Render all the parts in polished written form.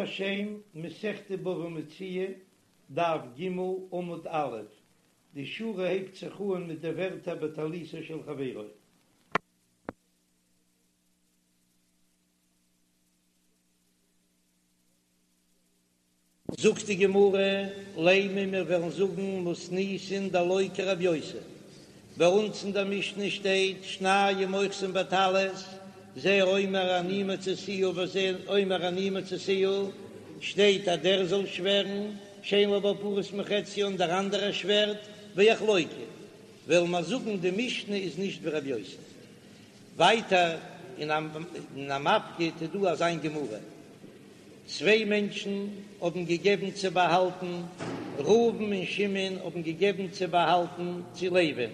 השם, מסכת בבא מציעא, דף ג, עמוד א', די שורה הייבט זיך אן מיט די ווערטער בטליתו של חברו. זאגט די גמרא, לימא מיר וועלן זאגן מתניתין דלא כרבי יוסי, ביי אונז אין דער משנה שטייט שנים אוחזין בטלית, זה אומר אני מצאתיה וזה אומר אני מצאתיה, שטייט אז דער זאל שווערן שאין לו בה פחות מחציה און דער אנדערער שווערט ויחלוקו, וועלן מיר זאגן די משנה איז נישט ווי רבי יוסי. ווייטער אין המפקיד איז דא אזא גמרא. צוויי מענטשן האבן געגעבן צו באהאלטן, ראובן און שמעון האבן געגעבן צו באהאלטן צו לוי'ן,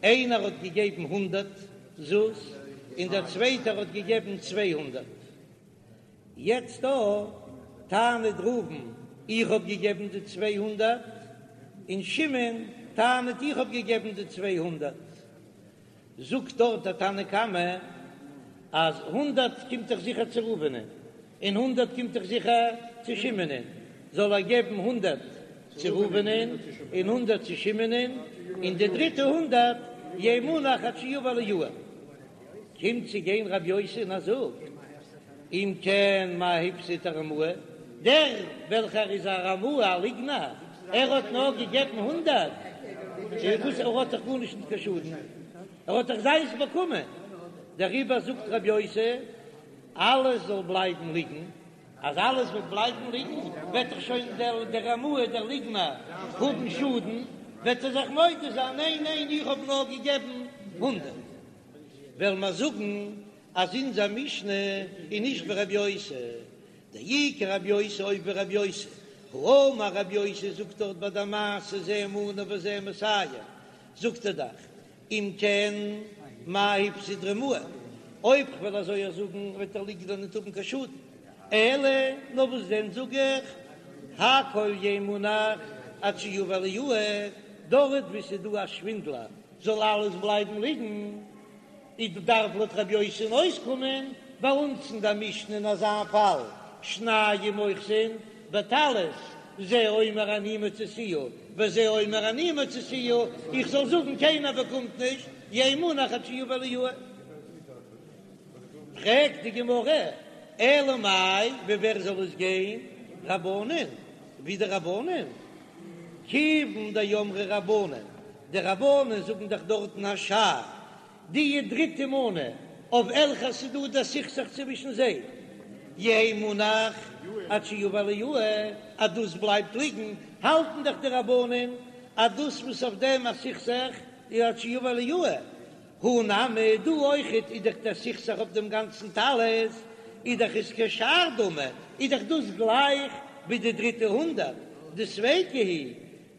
איינער האט געגעבן הונדערט זוז און דער צווייטער האט געגעבן 200. יעצט דא טענה'ט ראובן איך האב געגעבן די 200, און שמעון טענה'ט איך האב געגעבן די 200. זאגט דארט דער תנא קמא אז הונדערט קומט דאך זיכער צו ראובנ'ען און הונדערט קומט דאך זיכער צו שמעונ'ען, זאל ער געבן הונדערט צו ראובנ'ען און הונדערט צו שמעונ'ען, און די דריטע הונדערט יהא מונח עד שיבא אליהו. קומט צו גיין רבי יוסי און ער זאגט, אם כן מאי הפסיד הרמאי, דער וועלכער איז א רמאי א ליגנער, ער האט נאר געגעבן הונדערט, וואס ער האט דאך גארנישט נישט קיין שאדן, ער האט דאך זיינס באקומען, דעריבער זאגט רבי יוסי, אלעס זאל בלייבן ליגן, אז אלעס וועט בלייבן ליגן, וועט דאך שוין דער רמאי דער ליגנער האבן שאדן, וועט ער זיך מודה זיין, ניין ניין איך האב נאר געגעבן הונדערט. וועלן מיר זאגן אז אונזער משנה איז נישט ווי רבי יוסי, דאי כרבי יוסי אויב ווי רבי יוסי, האמר רבי יוסי זאגט דארט ביי די מעשה זה מנה וזה מאתים, זאגט ער דאך אם כן מאי הפסיד רמאי, אויב כ'וועל אזוי זאגן וועט דער ליגנער ניט האבן קיין שאדן, אלא נאר וואס דען זאג איך הכל יהא מונח עד שיבא אליהו, דארט וואו ס'איז דא א שווינדלער זאל אלעס בלייבן ליגן. איז דארף לויט רבי יוסי'ן אויסקומען ביי אונז אין דער משנה אין אזא פאל, שנים אוחזין בטלית, זה אומר אני מצאתיה וזה אומר אני מצאתיה, איך זאל זאגן קיינער באקומט נישט, יהא מונח עד שיבא אליהו. פרעגט די גמרא, אלא מאי, ווי ווער זאל עס גיין? רבנן, ווי די רבנן? כיוון דאמרי רבנן, די רבנן זאגן דאך דארטן השאר, די דריטע מנה אויף וועלכע ס'איז דא דער סכסוך צווישן זיי, יהא מונח עד שיבא אליהו, אז דאס בלייבט ליגן, האלטן דאך די רבנן אז דאס וואס אויף דעם א סכסוך איז עד שיבא אליהו, הא נמי, דא אויכעט איז דאך דער סכסוך אויף דעם גאנצן טלית, איז דאך עס כשאר דמי, איז דאך דאס גלייך ווי די דריטע הונדערט, דספיקא הוא,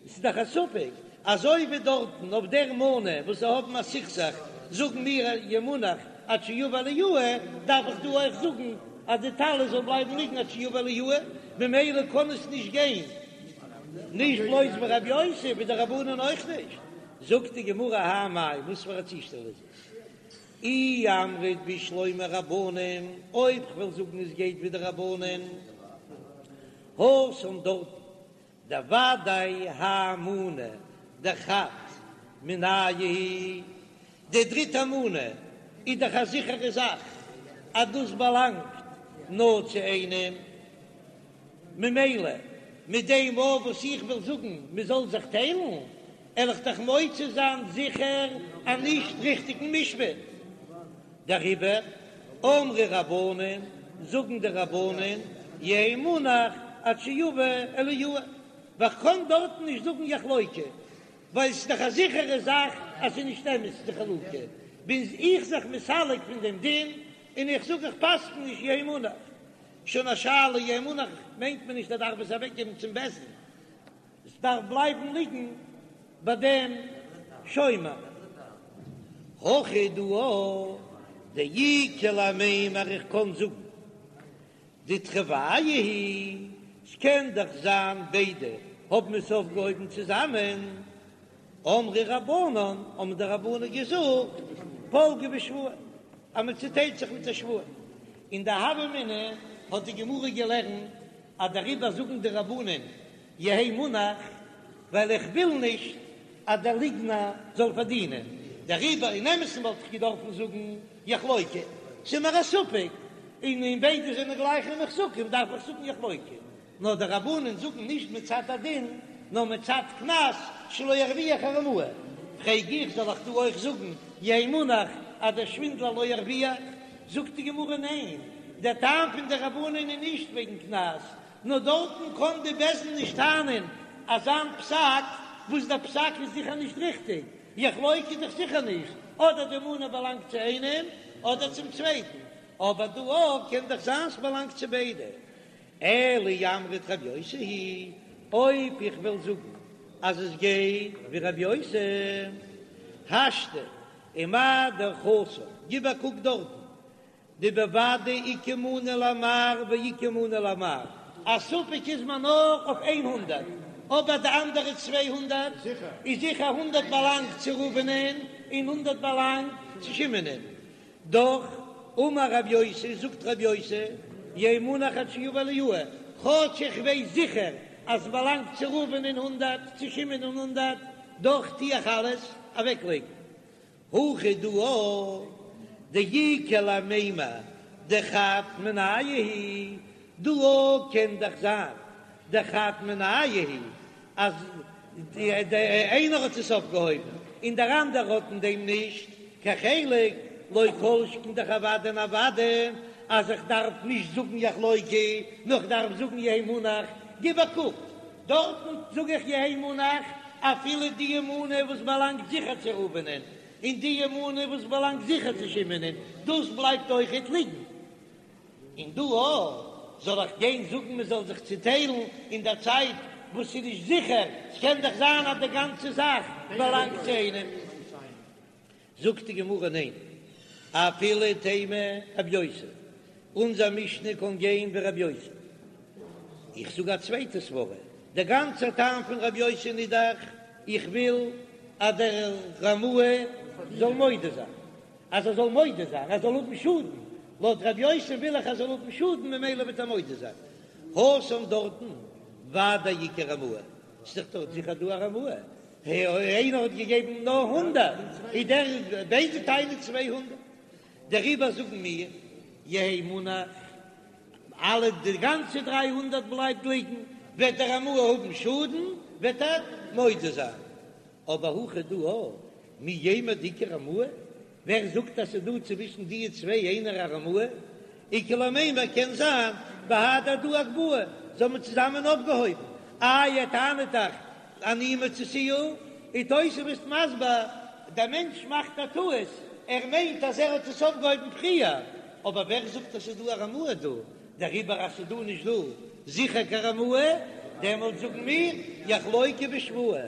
ס'איז דאך א ספק, אזוי ווי דארטן אויף דער מנה וואס זיי האבן א סכסוך, זאגן מיר יהא מונח עד שיבא אליהו, דארף איך דא אויך זאגן אז די טלית זאל בלייבן ליגן עד שיבא אליהו, ממילא קען עס נישט גיין נישט בלויז ווי רבי יוסי, ווי די רבנן אויך נישט. זאגט די גמרא האי מאי, וואס פאר א צושטעל איז עס? אי אמרת בשלמא רבנן, אויב כ'וועל זאגן עס גייט ווי די רבנן, התם דארטן דודאי האי מנה דחד מינייהו היא, די דריטע מנה איז דאך א זיכערע זאך אז דאס באלאנגט נאר צו איינעם, ממילא מיט דעם אויף וואס איך וויל זאגן מען זאל זיך טיילן, על איך דאך מוציא זיין זיכער א נישט ריכטיגן משפט. דעריבער אמרי רבנן, זאגן די רבנן, יהא מונח עד שיבא אליהו, ווייל כ'קען דארטן נישט זאגן יחלוקו, ווייל ס'איז דאך א זיכערע זאך אז ס'איז נישט אמת די חלוקה, בין איך זיך מסלק פון דעם דין און איך זאג איך פסק'ן נישט יהא מונח. שוין א שאלה, יהא מונח מיינט מען נישט ער דארף עס אוועקגעבן צום בית דין, עס דארף בלייבן ליגן ביי דעם שומר. הכא דא דאיכא למימר איך קען זאגן דתרוייהו היא, ס'קען דאך זיין ביידע האבן עס אויפגעהויבן צוזאמען, אמרי רבנן האבן די רבנן געזאגט פלגי בשבועה אז מען צוטיילט זיך מיט א שבועה, אין די הוה אמינא. האט די גמרא געלערנט אז דעריבער זאגן די רבנן יהא מונח, ווייל איך וויל נישט אז דער ליגנער זאל פארדינען, דעריבער אין אמת'ן וואלט איך געדארפן זאגן יחלוקו, ס'איז מיר א ספק, און און ביידע זענען גלייכע מוחזקים דארף איך זאגן יחלוקו, נאר די רבנן זאגן נישט מצד הדין נאר מצד קנס שלא ירוויח הרמאי, פרעג איך זאל איך דא אויך זאגן יהא מונח אז דער שווינדלער לא ירוויח? זאגט די גמרא ניין, דער טעם פון די רבנן איז נישט וועגן קנס, נאר דארטן קען די בית דין נישט טענה'ן אזאן פסק וואס דער פסק איז זיכער נישט ריכטיג, יחלוקו איז דאך זיכער נישט, אדער די מנה באלאנגט צו איינעם אדער צום צווייטן, אבער דא אויך קען דאך זיין ס'באלאנגט צו ביידע. אלא אי אמרת רבי יוסי היא, אויב איך וועל זאגן אז עס גייט ווי רבי יוסי, השתא ומה דאך התם, גיב א קוק דארטן, דבוודאי איכא מנה למר ואיכא מנה למר, א ספק איז מען נאר אויף איין הונדערט, אבער די אנדערע 200 איז זיכער הונדערט באלאנגט צו ראובנ'ען און הונדערט באלאנגט צו שמעונ'ען, דאך אמר רב יוסי, זאגט רב יוסי, יהא מונח עד שיבא אליהו, כאטש איך ווייס זיכער אז ס'באלאנגט צו ראובנ'ען הונדערט, צו שמעונ'ען הונדערט, דאך טו איך אלעס אוועקלייגן. הכא דא דאיכא למימר דחד מינייהו הוא, דא קען דאך זיין דחד מינייהו הוא אז איינער האט עס אויפגעהויבן און דער אנדערער האט אין דעם נישט קיין חלק, לא כל שכן דאך אוודאי און אוודאי אז איך דארף נישט זאגן יחלוקו, נאר איך דארף זאגן יהא מונח, גיב א קוק, דארטן זאג איך יהא מונח אפילו די מנה וואס באלאנגט זיכער צו ראובנ'ען, און די מנה וואס באלאנגט זיכער צו שמעונ'ען, דאס בלייבט אויכעט ליגן. און דא אויך זאל איך גיין זאגן מען זאל זיך צוטיילן אין דער צייט וואס ס'איז נישט זיכער, ס'קען דאך זיין אז די גאנצע זאך באלאנגט צו איינעם. זאגט די גמרא ניין, אפילו תימא רבי יוסי, אונזער משנה קען גיין ווי רבי יוסי. איך זאג א צווייטע סברא, דער גאנצער טעם פון רבי יוסי איז דאך איך וויל אז דער רמאי זאל מודה זיין, אז ער זאל מודה זיין, ער זאל האבן שאדן, לויט ר' יוסי וויל איך ער זאל האבן שאדן ממילא וועט ער מודה זיין. התם דארטן ודאי איכא רמאי, ס'איז דאך דארט זיכער דא א רמאי, איינער האט געגעבן נאר הונדערט, איז דער ביידע טענה'ן 200, דעריבער זאגן מיר יהא מונח, אלע די גאנצע 300 בלייבט ליגן, וועט דער רמאי האבן שאדן, וועט ער מודה זיין. אבער הכא דא מי יימר דאיכא רמאי, ווער זאגט אז ס'איז דא צווישן די צוויי איינער א רמאי? איכא למימר קען זיין בהדי הדדי אגבהו, זיי האבן צוזאמען אויפגעהויבן, איי ער טענה'ט דאך אני מצאתיה, איז תוספות מסביר, דער מענטש מאכט א טעות, ער מיינט אז ער האט עס אויפגעהויבן פריער, אבער ווער זאגט אז ס'איז דא א רמאי דא? דעריבער אז ס'איז דא נישט דא זיכער קיין רמאי, דעמאלט זאגן מיר יחלוקו בשבועה.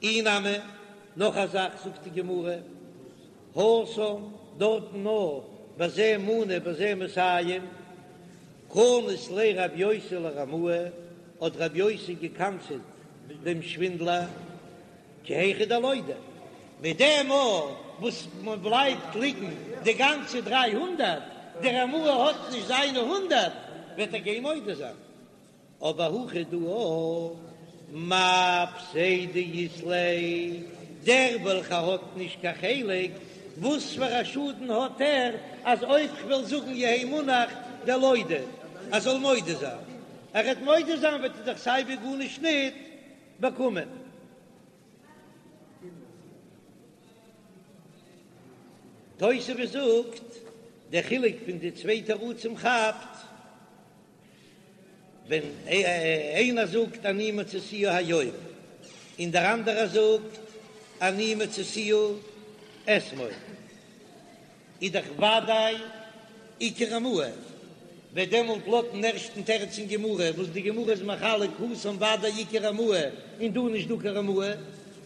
אי נמי, נאך א זאך זאגט די גמרא, התם, דארטן נאר בזה מנה בזה מאתים, קנס ליה רב יוסי לרמאי, האט רב יוסי געקנס'עט דעם שווינדלער, כי היכי דלודי, מיט דעם מאל וואס מען בלייבט ליגן די גאנצע 300, דער רמאי האט נישט זיינע הונדערט, וועט ער גיין מודה זיין. אבער הכא דא מאי פסידא אית ליה, דער וועלכער האט נישט קיין חלק, וואס פאר א שאדן האט ער אז אויב כ'וועל זאגן יהא מונח דלודי ער זאל מודה זיין, ער וועט מודה זיין וועט ער דאך סייווי גארנישט ניט באקומען. תוספות זאגט, דער חילוק פון די צוויי תירוצים כאפט ווען איינער זאגט אני מצאתיה היום און דער אנדערער זאגט אני מצאתיה אתמול. איז דאך וודאי איכא רמאי, וועט דעמאלט לויטן ערשטן תירוץ אין גמרא, וואס די גמרא איז מחלק התם וודאי איכא רמאי און דא נישט דא קיין רמאי,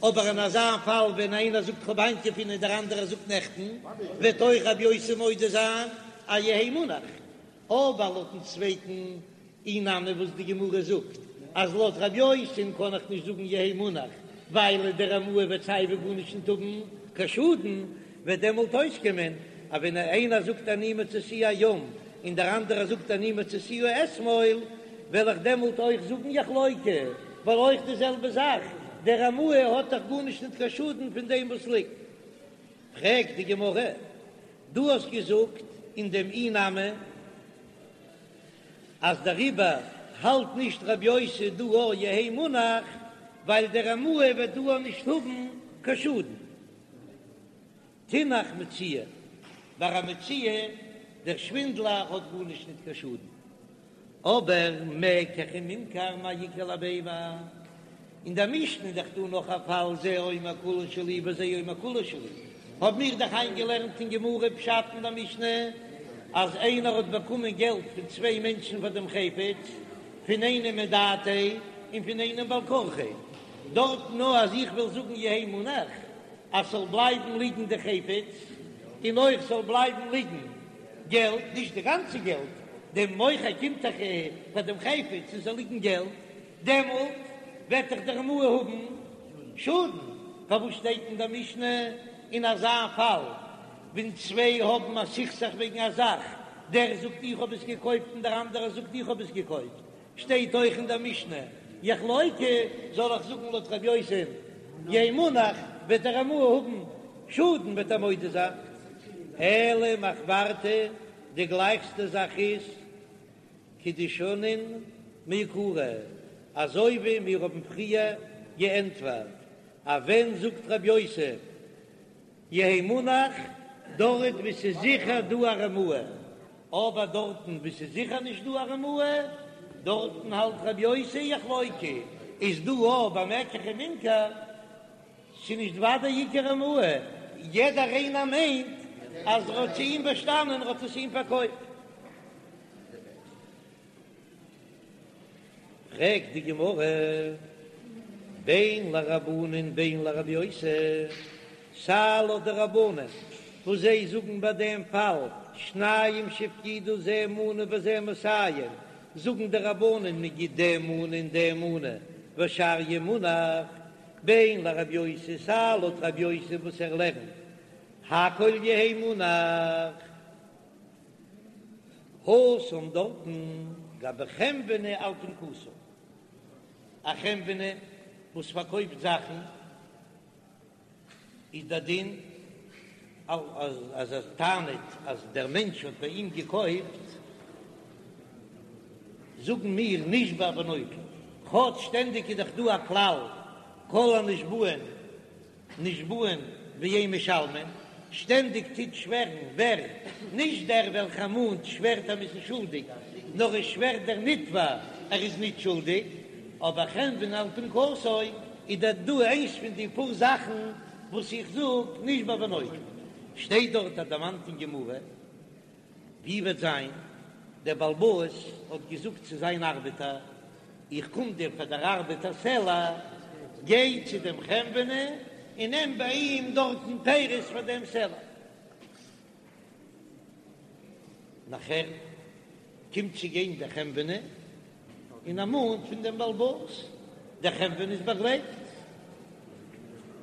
אבער אין אזא פאל ווען איינער זאגט כ'האב היינט געפונען און דער אנדערער זאגט נעכטן, וועט אויך רבי יוסי מודה זיין אז יהא מונח. אבער לויטן צווייטן אי נמי וואס די גמרא זאגט אז לויט רב יוסי'ן קען איך נישט זאגן יהא מונח ווייל דער רמאי וועט סייווי גארנישט נישט האבן קיין שאדן, וועט דעמאלט אויסקומען אז ווען איינער זאגט אני מצאתיה היום. און דער אנדערער זאגט אני מצאתיה אתמול, וועל איך דעמאלט אויך זאגן יחלוקו, ווייל אויך די זעלבע זאך, דער רמאי האט דאך גארנישט ניט קיין שאדן פון דעם וואס ליגט. פרעגט די גמרא, דו האסט געזאגט אין דעם אי נמי אז דעריבער האלט נישט רבי יוסי דא א יהא מונח, ווייל דער רמאי וועט דא נישט האבן קיין שאדן. תינח מציאה, ביי א מציאה, דער שווינדלער האט גארנישט ניט קיין שאדן. אבער מקח וממכר מאי איכא למימר, אין דער משנה איז דאך דא נאך א פאל זה אומר כולה שלי וזה אומר כולה שלי, האבן מיר דאך איינגעלערנט אין גמרא פשט אין דער משנה אז איינער האט באקומען געלט פון צוויי מענטשן פאר דעם חפץ, פון איינעם מדעתיה און פון איינעם בעל כרחיה, דארט נאר אז איך וועל זאגן יהא מונח אז ס'זאל בלייבן ליגן די חפץ און אויך ס'זאל בלייבן ליגן געלט, נישט די גאנצע געלט, דעם מוכר קומט דאך פאר דעם חפץ און ס'זאל ליגן געלט, דעמאלט וועט דאך דער רמאי האבן שאדן. פארוואס שטייט אין דער משנה אין אזא פאל ווען צוויי האבן א סכסוך וועגן א זאך, דער זאגט איך האב עס געקויפט און דער אנדערער זאגט איך האב עס געקויפט, שטייט אויך אין דער משנה יחלוקו, זאל איך זאגן לויט רבי יוסי יהא מונח, וועט דער רמאי האבן שאדן וועט ער מודה זיין. אלא מחוורתא, די גלייכסטע זאך איז כדשנין מעיקרא, אזוי ווי מיר האבן פריער געענטפערט אז ווען זאגט רבי יוסי יהא מונח, דארט וואו ס'איז זיכער דא א רמאי, אבער דארטן וואו ס'איז זיכער נישט דא א רמאי, דארטן האלט רבי יוסי יחלוקו, איז דא אויך ביי מקח וממכר, ס'איז נישט ודאי איכא רמאי, יעדער איינער מיינט אז ער האט צו אים באשטאנען, ער האט עס אים פארקויפט. פרעגט די גמרא, בין לרבנן בין לרבי יוסי, סיי לויט די רבנן וואס זיי זאגן ביי דעם פאל שניים שהפקידו זה מנה וזה מאתים, זאגן די רבנן מען גיט דעם מנה און דעם מנה והשאר יהא מונח, בין לרבי יוסי, סיי לויט רבי יוסי וואס ער לערנט הכל יהא מונח. התם דארטן גבי חנווני על פנקסו, א חנווני וואס פארקויפט זאכן איז דער דין אז ער טענה'ט אז דער מענטש האט ביי אים געקויפט, זאגן מיר נשבע ונוטל, כאטש שטענדיג איז דאך דא א כלל כל הנשבעין נשבעין ואין משלמין, שטענדיג טוט שווערן ווער? נישט דער וועלכער מאנט שווערט אז מ'איז שולדיג, נאר עס שווערט דער נתבע ער איז נישט שולדיג, אבער חנווני על פנקסו איז דאך דא איינס פון די פאר זאכן וואס איך זאג נשבע ונוטל, שטייט דארט א דערמאנט אין גמרא. ווי וועט זיין, דער בעל הבית האט געזאגט צו זיין ארבעטער, איך קום דיר פאר דער ארבעט א סלע, גיי צו דעם חנווני און נעם ביי אים דארטן פירות פאר דעם סלע. נאכער קומט צו גיין דער חנווני און ער מאנט פון דעם בעל הבית, דער חנווני איז באגלייבט,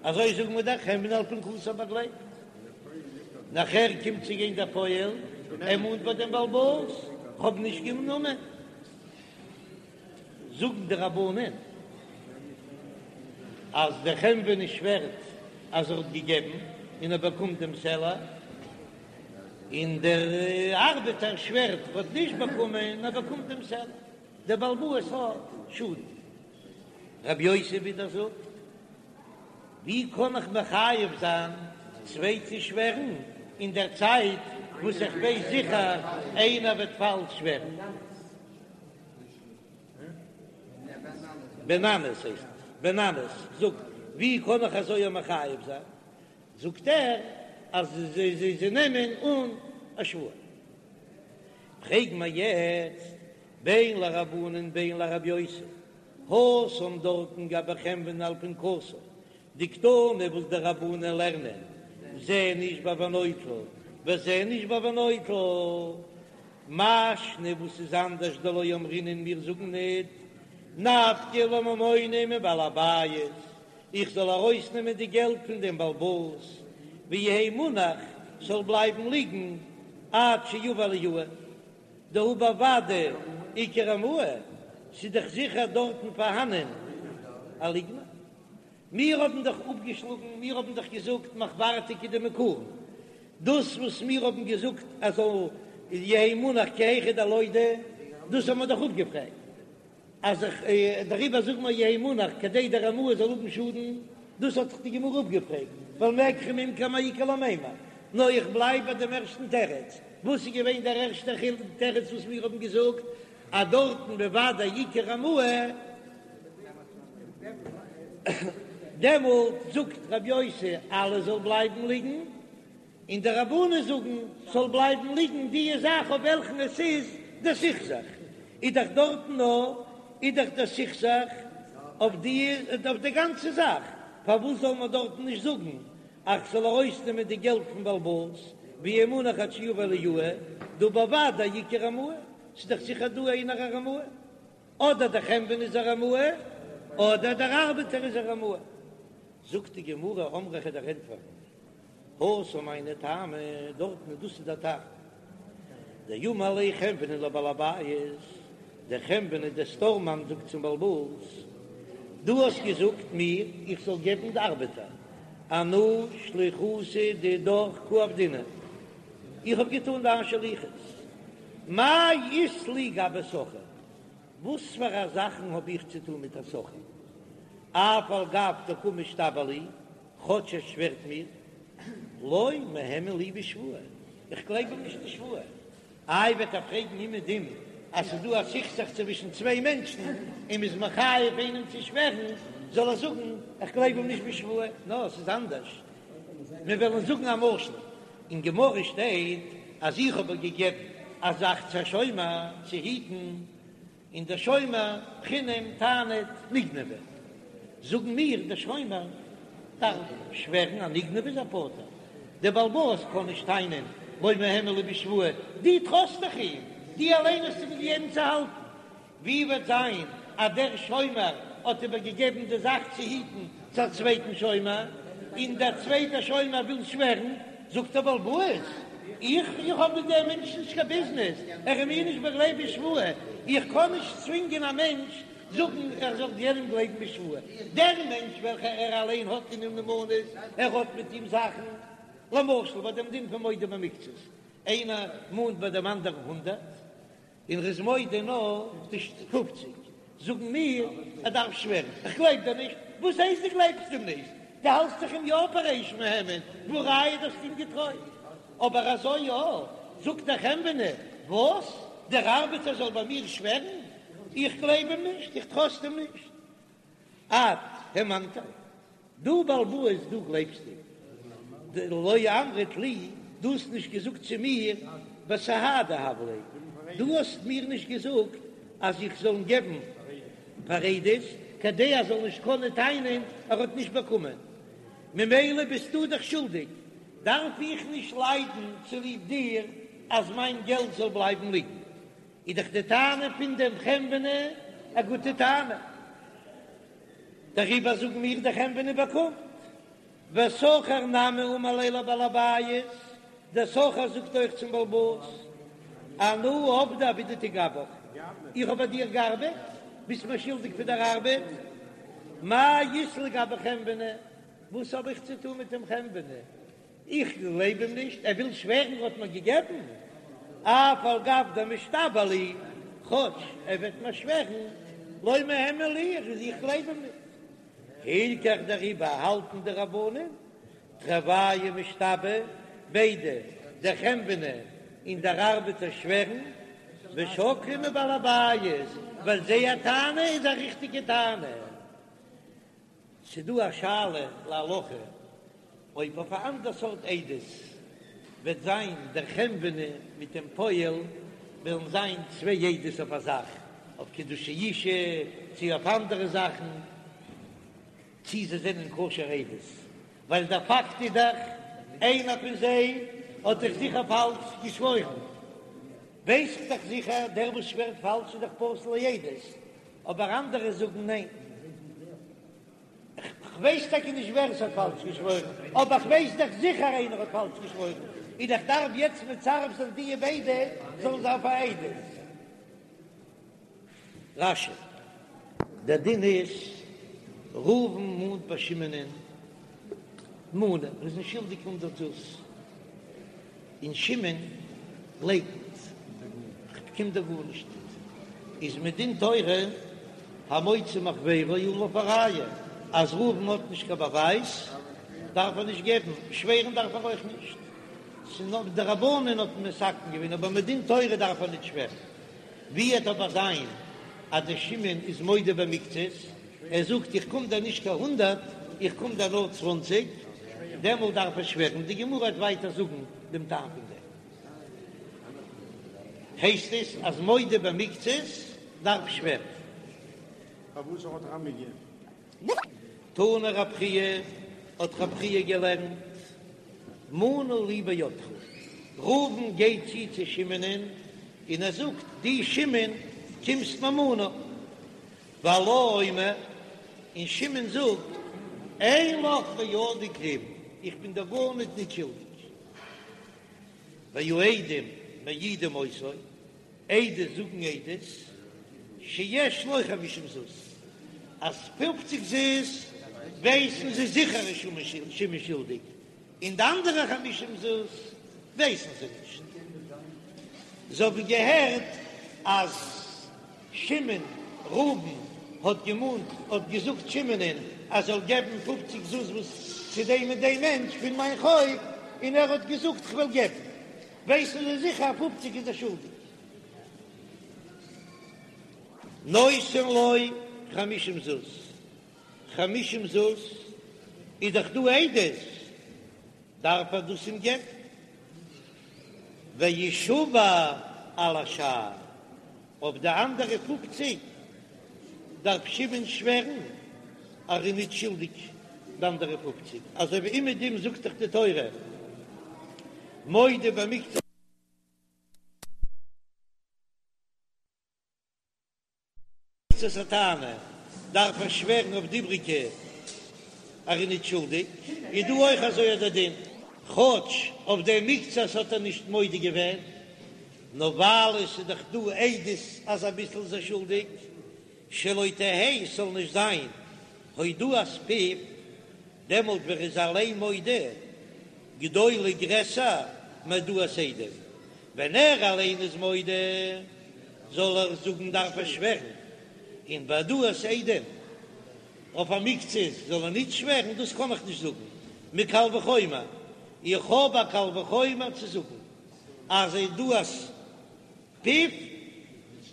אזוי זאגן מיר דער חנווני על פנקסו באגלייבט. נאכער קומט צו גיין דער פועל, ער מאנט ביי דעם בעל הבית, כ'האב נישט גענומען. זאגן די רבנן אז דער חנווני שווערט אז ער האט געגעבן און ער באקומט דעם סלע. און דער ארבעטער שווערט ער האט נישט באקומען און ער באקומט דעם סלע, דער בעל הבית האט שאדן. רבי יוסי ווידער זאגט, ווי קען איך מחייב זיין צוויי צו שווערן אין דער צייט וואס איך ווייס זיכער איינער וועט פאלש שווערן? בן ננס הייסט עס, בן ננס זאגט, ווי קען איך אזוי מחייב זיין? זאגט ער אז זיי נעמען אן א שבועה. פרעג מיר יעצט בין לרבנן בין לרבי יוסי, התם דארטן גבי חנווני על פנקסו, דקתני וואס די רבנן לערנען זה נשבע ונוטל וזה נשבע ונוטל, מאי שנא וואס איז אנדערש דלא אמרינן מיר זאגן ניט נפקא ליה ממונא מבעל הבית, איך זאל ארויסנעמען די געלט פון דעם בעל הבית, ויהא מונח, ס'זאל בלייבן ליגן עד שיבא אליהו. דהא בוודאי איכא רמאי, ס'איז דאך זיכער דארטן פארהאנען א ליגנער. מיר האבן דאך אפגעשלאגן, מיר האבן דאך געזאגט מחוורתא כדמעיקרא, דאס וואס מיר האבן געזאגט אז זאל יהא מונח כי היכי דלודי, דאס האבן מיר דאך אפגעפרעגט, אז איך דעריבער זאג מיר יהא מונח כדי דער רמאי זאל האבן שאדן, דאס האט דאך די גמרא אפגעפרעגט, ווייל מקח וממכר מאי איכא למימר, נאר איך בלייב ביי דעם ערשטן תירוץ, וואס איז געווען דער ערשטער תירוץ וואס מיר האבן געזאגט אז דארטן בוודאי איכא רמאי, דעמאלט זאגט רבי יוסי אלעס זאל בלייבן ליגן, און די רבנן זאגן ס'זאל בלייבן ליגן די זאך אויף וועלכן עס איז דער סכסוך, איז דאך דארטן נאר איז דאך דער סכסוך אויף די אויף די גאנצע זאך, פארוואס זאל מען דארטן נישט זאגן אז כ'זאל ארויסנעמען די געלט פון בעל הבית, ויהא מונח עד שיבא אליהו, דהא בוודאי איכא רמאי, ס'איז דאך זיכער דא איינער א רמאי. אדער דער חנווני איז א רמאי, אדער דער ארבעטער איז א רמאי. זאגט די גמרא, אמרי כ'וועל דיר ענטפערן, התם היינו טעמא, דארטן איז דאס איז דער טעם. דאמר ליה חנווני לבעל הבית, דער חנווני דער סטארמאן זאגט צום בעל הבית, דו האסט געזאגט מיר איך זאל געבן די ארבעטער, אנא שליחותא דידך קא עבדינא, איך האב געטאן דיין שליחות, מאי אית לי גבי שכיר? וואס פאר א זאכן האב איך צו טון מיט א שכיר? אף על גב דקא משתבע לי, כאטש ער שווערט מיר, לא מהימן לי בשבועה, איך גלייב אים נישט די שבועה. איי וועט ער פרעגן אומעדום אז ס'איז דא א סכסוך צווישן צוויי מענטשן און מ'איז מחייב איינעם צו שווערן, זאל ער זאגן איך גלייב אים נישט בשבועה? נאר ס'איז אנדערש, מיר וועלן זאגן א משל, אין גמרא שטייט אז איך האב געגעבן א זאך צו א שומר צו היטן, און דער שומר חינם טענה'ט נגנבה, זאגן מיר דער שומר דארף שווערן אז נגנבה איז ער פטור, דער בעל הבית קען נישט טענה'ן לא מהימן לי בשבועה, דו טראסט דאך אים, דו אליין האסט אים געגעבן צו האלטן, ווי וועט זיין אז דער שומר האט איבער געגעבן די זאך צו היטן צו א צווייטן שומר, און דער צווייטער שומר וויל שווערן, זאגט דער בעל הבית, איך איך האב מיט דעם מענטש נישט קיין ביזנעס, ער איז מיר נישט באגלייבט בשבועה, איך קען נישט צווינגען א מענטש זאגן ער זאל יענעם גלייבן בשבועה, דער מענטש וועלכער ער אליין האט אין אים נאמנות, ער האט מיט אים זאכן, למשל ביי דעם דין פון מודה במקצת, איינער מאנט ביי דעם אנדערן הונדערט, און ר'איז מודה נאר די פופציג, זאגן מיר ער דארף שווערן, איך גלייב דיר נישט, וואס הייסט דו גלייבסט אים נישט? דו האלסט דאך אים יא פאר ריש מהימן, והא ראיה דו האסט אים געטרויט, אבער אזוי יא, זאגט דער חנווני, וואס? דער ארבעטער זאל ביי מיר שווערן? איך גלייב אים נישט, איך טראסט אים נישט. את האמנתיה, דו בעל הבית דו גלייבסט אים, דלא אמרת לי, דו האסט נישט געזאגט צו מיר בסהדי הב ליה, דו האסט מיר נישט געזאגט אז איך זאל אים געבן פאר עדות, כדי ער זאל נישט קענען טענה'ן ער האט נישט באקומען, ממילא ביסטו דאך שולדיג, דארף איך נישט ליידן צוליב דיר אז מיין געלט זאל בלייבן ליגן. איז דאך די טענה פון דעם חנווני א גוטע טענה, דעריבער זאגן מיר דער חנווני באקומט. ושכיר נמי אמר ליה לבעל הבית, דער שכיר זאגט אויך צום בעל הבית, אנא עבדי עבידתא גבך, איך האב ביי דיר געארבעט, ביסט מיר שולדיג פאר דער ארבעט, מאי אית לי גבי חנווני, וואס האב איך צו טון מיט דעם חנווני, איך גלייב אים נישט, ער וויל שווערן ער האט מיר געגעבן, אף על גב דמשתבע לי, כאטש ער וועט מיר שווערן, לא מהימן לי, איך גלייב אים נישט. הילכך דעריבער האלטן די רבנן, תרוייהו משתבעי, ביידע, דער חנווני און דער ארבעטער שווערן, ושקלי מבעל הבית, ווייל זייער טענה איז א ריכטיגע טענה. ס'דא א שאלה להלכה אויב אויף א אנדער סארט עדות וועט זיין דער חנווני מיט דעם פועל וועלן זיין צוויי עדות אויף א זאך, אויף קידושי אישה צי אויף אנדערע זאכן, צי זיי זענען כשר עדות, ווייל דער פאקט איז דאך איינער פון זיי האט דאך זיכער פאלש געשוואוירן, ווייס איך דאך זיכער דער וואס שווערט פאלש איז דאך פסול לעדות, אבער אנדערע זאגן ניין. כ'ווייס טאקע נישט ווער עס האט פאלש געשוואוירן, אבער כ'ווייס דאך זיכער איינער האט פאלש געשוואוירן. און איך דארף יעצט מצרף זיין דיע ביידע זאלן זיין פאר עדות. רש"י, דער דין איז, ראובן מאנט ביי שמעונ'ען מנה, ער איז אים שולדיג הונדרעט זוז, און שמעון לייקנט, כ'באקום דיר גארנישט ניט, איז מדין תורה המוציא מחבירו עליו הראיה, אז ראובן האט נישט קיין באווייז דארף ער נישט געבן, שווערן דארף ער אויך נישט, ס'איז נאר די רבנן האט מתקן געווען, אבער מדין תורה דארף ער ניט שווערן. ווי עט אבער זיין אז דער שמעון איז מודה במקצת, ער זאגט איך קום דיר נישט קיין הונדרעט, איך קום דיר נאר צוואנציג, דעמאלט דארף ער שווערן, די גמרא וועט ווייטער זאגן דעם טעם פון דעם. הייסט עס אז מודה במקצת דארף שווערן. פארוואס האט רמי געגעבן? תנא רב חייא, האט רב חייא געלערנט, מנה לי בידך, ראובן גייט צו צו שמעונ'ען און ער זאגט, דו שמעון קומסט מיר מנה, והלה אומר, און שמעון זאגט, אין לך בידי כלום, איך בין דיר גארניט ניט שולדיג. והעדים מעידים אותו, עדות זאגן עדות, שיש לו חמישים זוז, אז פופציג זוז ווייסן זיי זיכער איז שמעון שולדיג, און די אנדערע חמישים זוז ווייסן זיי נישט. זיי האבן געהערט אז שמעון, ראובן, האט געמאנט, האט געזאגט שמעונ'ען אז זאל געבן פופציג זוז וואס צו דעם און דעם מענטש פון מיין חוב, און ער האט געזאגט כ'וועל געבן. ווייסן זיי זיכער אז פופציג איז ער שולדיג. נותן לו חמישים זוז, חמישים זוז איז דאך דא עדות, דארף ער דאס אים געבן. וישבע על השאר, אויף די אנדערע פופציג דארף שמעון שווערן אז ער איז נישט שולדיג די אנדערע פופציג, אזוי ווי אומעדום זאגט דאך די תורה מודה במקצת. הטענה דארף ער שווערן אויף די איבריגע אז ער איז נישט שולדיג, איז דא אויך אזוי אט דער דין, כאטש אויף דעם מקצת האט ער נישט מודה געווען, נאר ווייל עס איז דאך דא עדות אז אביסל איז ער שולדיג, שלא תהא ס'זאל נישט זיין הודאת פיו, דעמאלט ווען ער איז אליין מודה, גדולה גרעסער מהעדאת עדים, ווען ער אליין איז מודה זאל ער זאגן דארף ער שווערן, און בהעדאת עדים אויף א מקצת זאל ער נישט שווערן, דאס קען איך נישט זאגן מקל וחומר, איך האב א קל וחומר צו זאגן אז הודאת פיו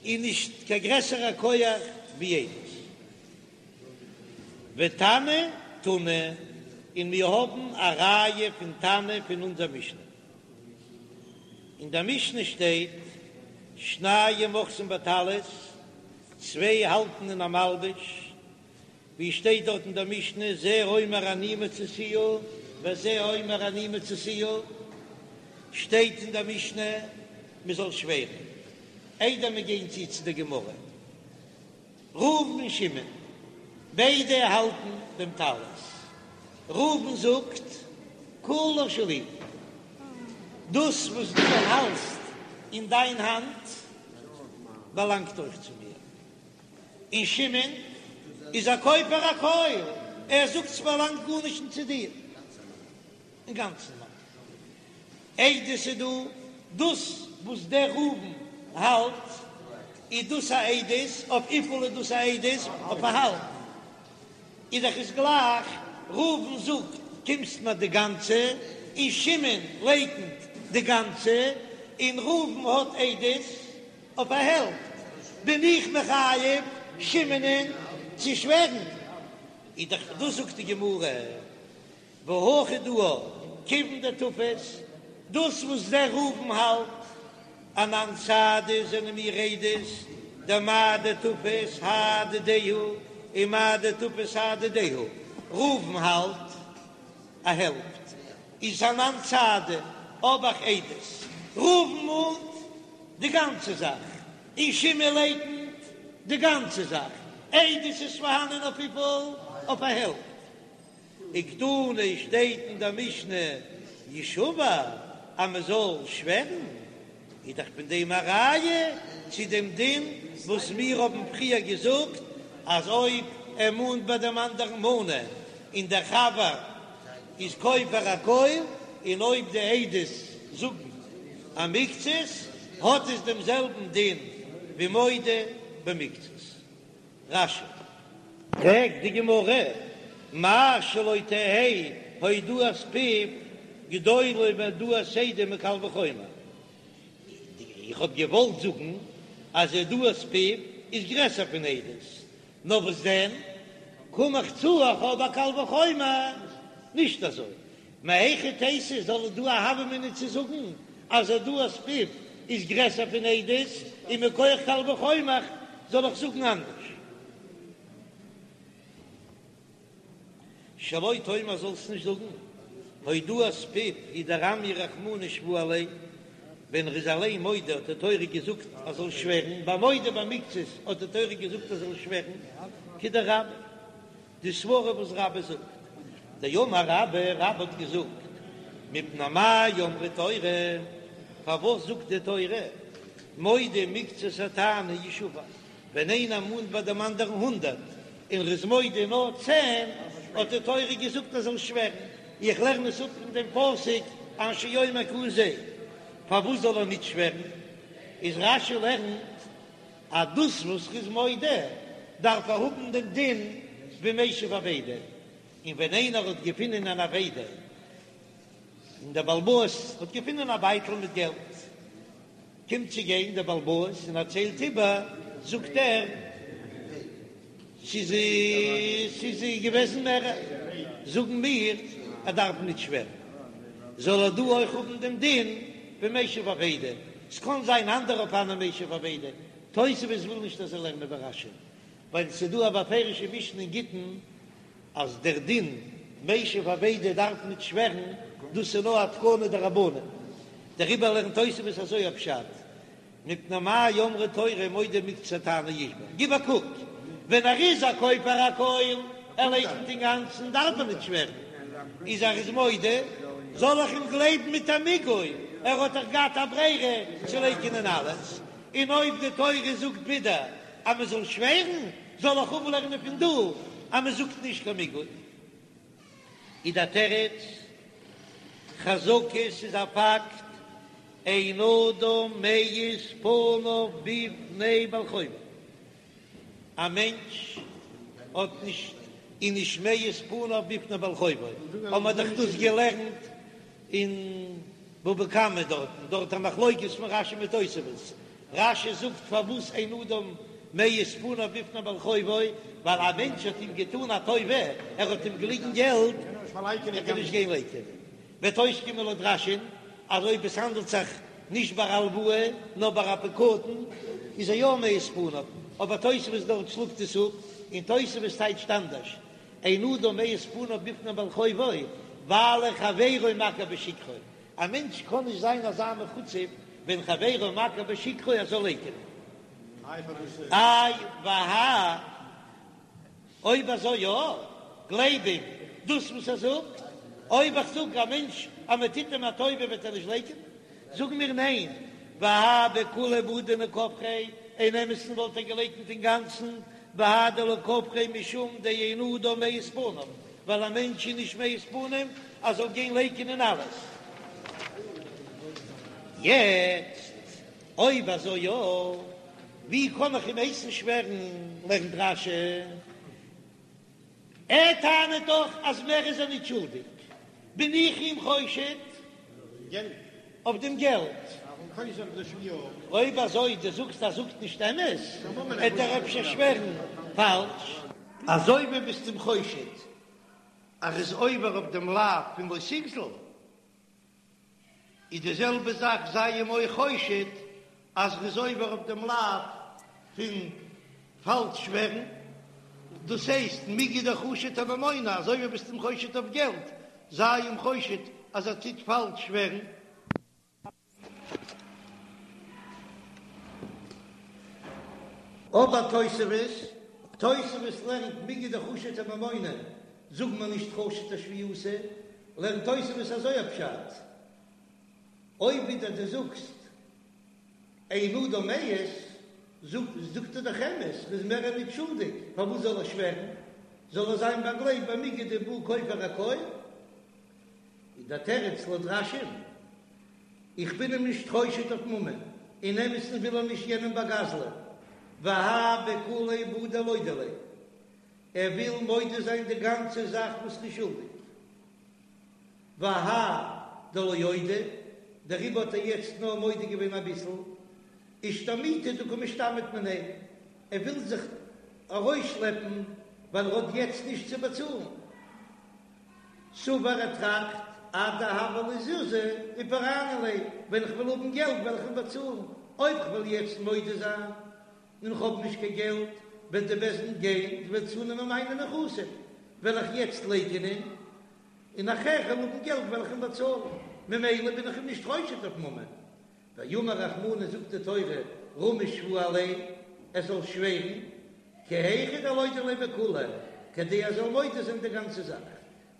איז נישט קיין גרעסערע כח ווי עדות. ותנא תנא, און מיר האבן א ראיה פון תנא פון אונזער משנה. אין דער משנה שטייט, שניים אוחזין בטלית, צוויי האלטן אין א מלבוש, ווי שטייט דארט אין דער משנה, זה אומר אני מצאתיה וזה אומר אני מצאתיה, שטייט אין דער משנה מען זאל שווערן, איידער מיר גייען צו צו דער גמרא. ראובן און שמעון, ביידע האלטן דעם טלית. ראובן זאגט, כולה שלי, דאס וואס דו האלסט אין דיין האנט באלאנגט אויך צו מיר. און שמעון איז א כופר הכל, ער זאגט ס'באלאנגט גארנישט צו דיר. אינגאנצן מיין עדות איז דא, דאס וואס דער ראובן האלט איז דאס א עדות, אויף וויפיל איז דאס א עדות? אויף א האלב איז דאך עס גלייך, ראובן זאגט קומסט מיר די גאנצע, און שמעון לייקנט די גאנצע, און ראובן האט עדות אויף א העלפט, בין איך מחייב שמעונ'ען צו שווערן, איז דאך דאס זאגט די גמרא. והכא דא כיוון דתפס, דאס וואס דער ראובן האלט אנן סהדי זענען מיר עדות, דמה דתפס האי דידיה הוא ומה דתפס האי דידיה הוא, ראובן האלט א העלפט איז אנן סהדי האב איך עדות, ראובן מאנט די גאנצע זאך און שמעון לייקנט די גאנצע זאך, עדות איז פארהאנען אויף וויפיל? אויף א העלפט. וקתני שטייט אין דער משנה ישבע. אז מען זאל שווערן, איז דאך פון דעם א ראיה צו דעם דין וואס מיר האבן פריער געזאגט אז אויב ער מאנט ביי דעם אנדערן מנה און דער חבר איז כופר הכל, און אויב די עדות זאגן א מקצת האט עס דעם זעלבן דין ווי מודה במקצת. רש"י. פרעגט די גמרא, מאי שלא תהא הודאת פיו גדולה מהודאת עדים מקל וחומר, איך האב געוואלט זאגן אז הודאת פיו איז גרעסער פון עדות, נאר וואס דען, קום איך צו איך האב א קל וחומר, נישט אזוי, מהיכי תיתי זאל דא א הוה אמינא צו זאגן אז הודאת פיו איז גרעסער פון עדות, און מכח קל וחומר זאל איך זאגן אנדערש. שלא תאמר זאלסט נישט זאגן הודאת פיו הוא דרמיא רחמנא שבועה עליה, ווען ער איז אליין מודה האט די תורה געזאגט ער זאל שווערן, ביי מודה במקצת האט די תורה געזאגט ער זאל שווערן, כדרבה. די סברה וואס רבה זאגט, דאמר רבה, רבה האט געזאגט, מפני מה אמרה תורה, פארוואס זאגט די תורה, מודה מקצת הטענה ישבע, ווען איינער מאנט ביי דעם אנדערן הונדערט און ער איז מודה נאר צען, האט די תורה געזאגט ער זאל שווערן, איך לערן עס אפ פון דעם פסוק אשר יאמר כי הוא זה, פארוואס זאל ער ניט שווערן? איז רש"י לערנט אז דאס וואס ר'איז מודה דארף ער האבן דעם דין ווי משיב אבידה, און ווען איינער האט געפונען אן אבידה און דער בעל הבית האט געפונען א בייטל מיט געלט, קומט צו גיין דער בעל הבית און ער ציילט איבער, זאגט ער, ס'איז ס'איז געוועזן מערער, זאגן מיר ער דארף ניט שווערן, זאל ער דא אויך האבן דעם דין ווי משיב אבידה, ס'קען זיין אנדערע אופנים משיב אבידה, תוספות וויל נישט אזוי לערנען ווי רש"י, ווייל ס'איז דא א בפירושע משנה אין גיטין אז דער דין משיב אבידה דארף ניט שווערן, דאס איז נאר א תקנה דרבנן, דעריבער לערנט תוספות אזוי א פשט. מפני מה אמרה תורה מודה מקצת הטענה ישבע, גיב א קוק, ווען ער איז א כופר הכל, ער לייקנט אינגאנצן, דארף ער ניט שווערן, איז ער איז מודה, זאל איך אים גלייבן מיט א מיגו, ער האט דאך געהאט א ברירה צו לייקענען אלעס, און אויב די תורה זאגט ווידער אז מען זאל שווערן, זאל איך אפלערנען פון דא אז מען זאגט נישט קיין מיגו. איז דער תירוץ, חזקה ס'איז א פאקט, אין אדם מעיז פניו בפני בעל חובו, א מענטש האט נישט איז נישט מעיז פניו בפני בעל חובו, האבן מיר דאך דאס געלערנט אין בבא קמא דארטן, דארט א מחלוקת פון רש"י מיט תוספות, רש"י זאגט פארוואס אין אדם מעיז פניו בפני בעל חובו, ווייל א מענטש האט אים געטאן א טובה, ער האט אים געליגן געלט, וועט ער נישט גיין לייקענען. וועט אויסקומען לויט רש"י'ן אז אויב עס האנדלט זיך נישט ביי א הלוואה נאר ביי א פקדון איז ער יא מעיז פניו, אבער תוספות דארט שלאגט עס אפ, און תוספות טייטשט אנדערש, אין אדם מעיז פניו בפני בעל חובו, ווייל חברו מכיר בשקרו, א מענטש קען נישט זיין אזא מחוצף ווען חברו מכיר בשקרו ער זאל לייקענען. איי והא אויב אזוי יא, גלייב אים דאס וואס ער זאגט, אויב איך זאג א מענטש אז מען טוט אים א טובה וועט ער נישט לייקענען, זאג מיר ניין, והא בכוליה בעי דנכפריה, אין אמת'ן וואלט ער געלייקנט אינגאנצן, והא דלא כפריה משום דאין אדם מעיז פניו, ווייל א מענטש איז נישט מעיז פנים ער זאל גיין לייקענען אלעס. יעצט אויב אזוי יא, ווי קען איך אים הייסן שווערן? לערנט רש"י, ער טענה'ט דאך אז מער איז ער נישט שולדיג, בין איך אים חושד אויף דעם געלט? אויב אזוי דו זאגסט אז ער זאגט נישט אמת, וועט ער אפשר שווערן פאלש. אזוי ווי ביסט אים חושד אז ער איז עובר אויף דעם לאו פון לא תגזול. איז די זעלבע זאך זיי אים אויך חושד אז ר'איז עובר אויף דעם לאו פון פאלש שווערן, דאס הייסט מיגו דחשיד אממונא, אזוי ווי ביסט אים חושד אויף געלט, זיי אים חושד אז ער טוט פאלש שווערן. אבער תוספות, תוספות לערנט מיגו דחשיד אממונא, זאג מיר נישט חשיד אשבועתא, לערנט תוספות אזוי א פשט. אויב ווידער דו זאגסט אין אדם מעיז, זאגט ער דאך אמת, ר'איז מער ניט שולדיג, פארוואס זאל ער שווערן? זאל ער זיין באגלייבט במיגו דבעי כופר הכל? איז דער תירוץ לויט רש"י, איך בין אים נישט חושד אויף ממון, אין אמת'ן וויל ער נישט יענעם באגזל'ען, והאי בכוליה בעי דלודי ליה, ער וויל מודה זיין די גאנצע זאך וואס ר'איז שולדיג. והאי דלא אודי, דעריבער האט ער יעצט נאר מודה געווען אביסל, אישתמוטי דקא משתמיט מיניה, ער וויל זיך ארויסשלעפן ווייל ער האט יעצט נישט צו באצאלן. סבר ער טראכט, עד דהוו לי זוזי ופרענא ליה, ווען איך וועל האבן געלט וועל איך אים באצאלן, אויב כ'וועל יעצט מודה זיין און כ'האב נישט קיין געלט, וועט די בית דין גיין און וועט צונעמען מיינע נכסים, וועל איך יעצט לייקענען, און נאכער כ'וועל האבן געלט וועל איך אים באצאלן, ממילא בין איך אים נישט חושד אויף ממון. ואמר רחמנא זאגט די תורה רמי שבועה עליה, ער זאל שווערן, כי היכי דלודי ליה בכוליה, כדי ער זאל מודה זיין די גאנצע זאך.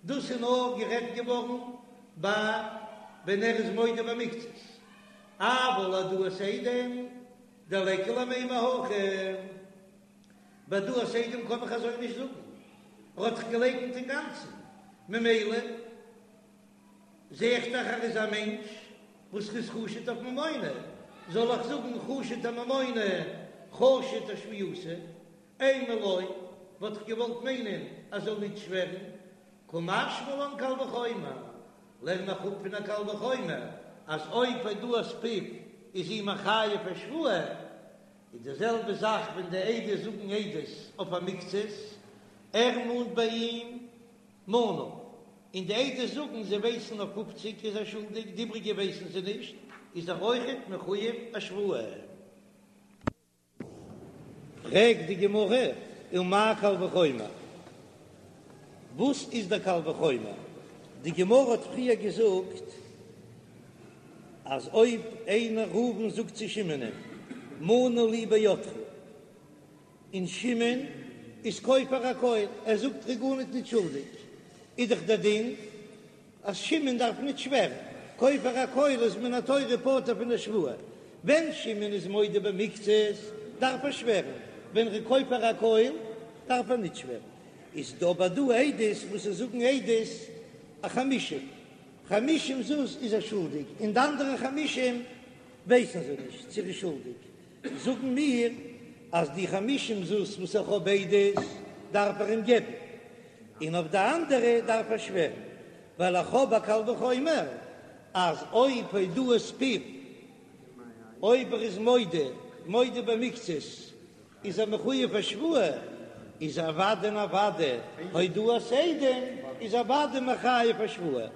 דאס איז נאר גערעדט געווארן ביי ווען ער איז מודה במקצת, אבל העדאת עדים דליכא למימר הכי, ביי העדאת עדים קען איך אזוי נישט זאגן, ער האט דאך געלייקנט אינגאנצן, ממילא זע איך דאך ער איז א מענטש וואס איז חשוד אויף ממונא, זאל איך זאגן חשוד אממונא חשוד אשבועתא, אימא לא, וואלט איך געוואלט מיינען אז זאל ניט שווערן, קא משמע לן קל וחומר, לערן איך אפ פון א קל וחומר אז אויב הודאת פיו איז אים מחייב א שבועה, איז די זעלבע זאך ווען די עדות זאגן עדות אויף א מקצת, ער מאנט ביי אים מנה, און די עדות זאגן זיי ווייסן אויף פופציג איז ער שולדיג, די איבריגע ווייסן זיי נישט, איז ער אויכעט מחויב א שבועה. פרעגט די גמרא, ומאי קל וחומר? וואס איז דער קל וחומר? די גמרא האט פריער געזאגט אז אויב איינער ראובן זאגט צו שמעונ'ען מנה לי בידך, און שמעון איז כופר הכל, ער זאגט ער איז גארניט ניט שולדיג, איז דאך דער דין אז שמעון דארף ניט שווערן, כופר הכל איז מן התורה פטור פון די שבועה, ווען שמעון איז מודה במקצת דארף ער שווערן, ווען ר'איז כופר הכל דארף ער ניט שווערן, איז דא אבער דא עדות וואס זיי זאגן עדות א חמישים, חמישים זוז איז ער שולדיג, און די אנדערע חמישים ווייסן זיי נישט צו ער איז שולדיג, זאגן מיר אז די חמישים זוז וואס איך האב עדות דארף ער אים געבן, און אויף די אנדערע דארף ער שווערן, ווייל איך האב א קל וחומר אז אויב הודאת פיו, אויב ער איז מודה, מודה במקצת, איז ער מחויב א שבועה, איז אוודאי און אוודאי הודאת עדים איז אוודאי מחייב א שבועה.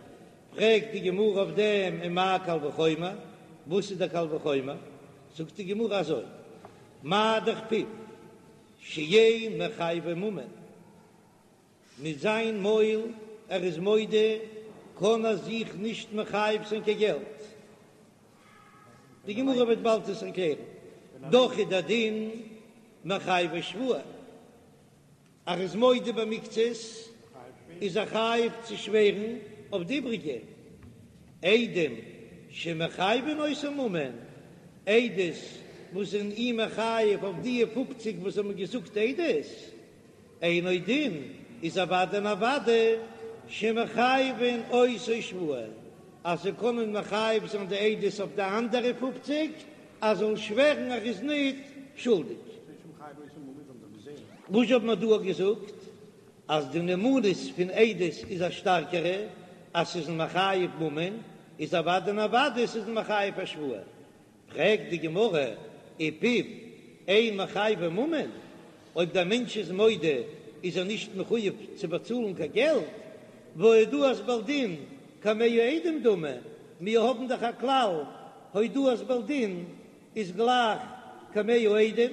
פרעגט די גמרא אויף דעם ומאי קל וחומר, וואס איז דער קל וחומר? זאגט די גמרא אזוי, מה דאך פיו שאין מחייבו ממון, מיט זיין מויל ער איז מודה קען ער זיך נישט מחייב זיין קיין געלט, די גמרא וועט באלד עס ערקלערן, דאך איז דער דין מחייבו שבועה. ער איז מודה במקצת איז ער חייב צו שווערן אויף די איבריגע עדים שמחייבין אותו ממון, עדות וואס זענען אים מחייב אויף די פופציג וואס האבן געזאגט עדות, אינו דין איז אוודאי און אוודאי שמחייבין אותו שבועה, אז זיי קענען מחייב זיין די עדות אויף די אנדערע פופציג אז זאל שווערן ער איז ניט שולדיג. וואס האט מען דא געזאגט? אז די נאמנות פון עדות איז א שטארקערע, אז ס'איז מחייב ממון, איז אוודאי און אוודאי ס'איז מחייב א שבועה. פרעגט די גמרא, ופיו אין מחייבו ממון, אויב דער מענטש איז מודה איז ער נישט מחויב צו באצאלן קיין געלט, והא הודאת בעל דין כמאה עדים דמי, מיר האבן דאך א כלל הודאת בעל דין איז גלייך כמאה עדים.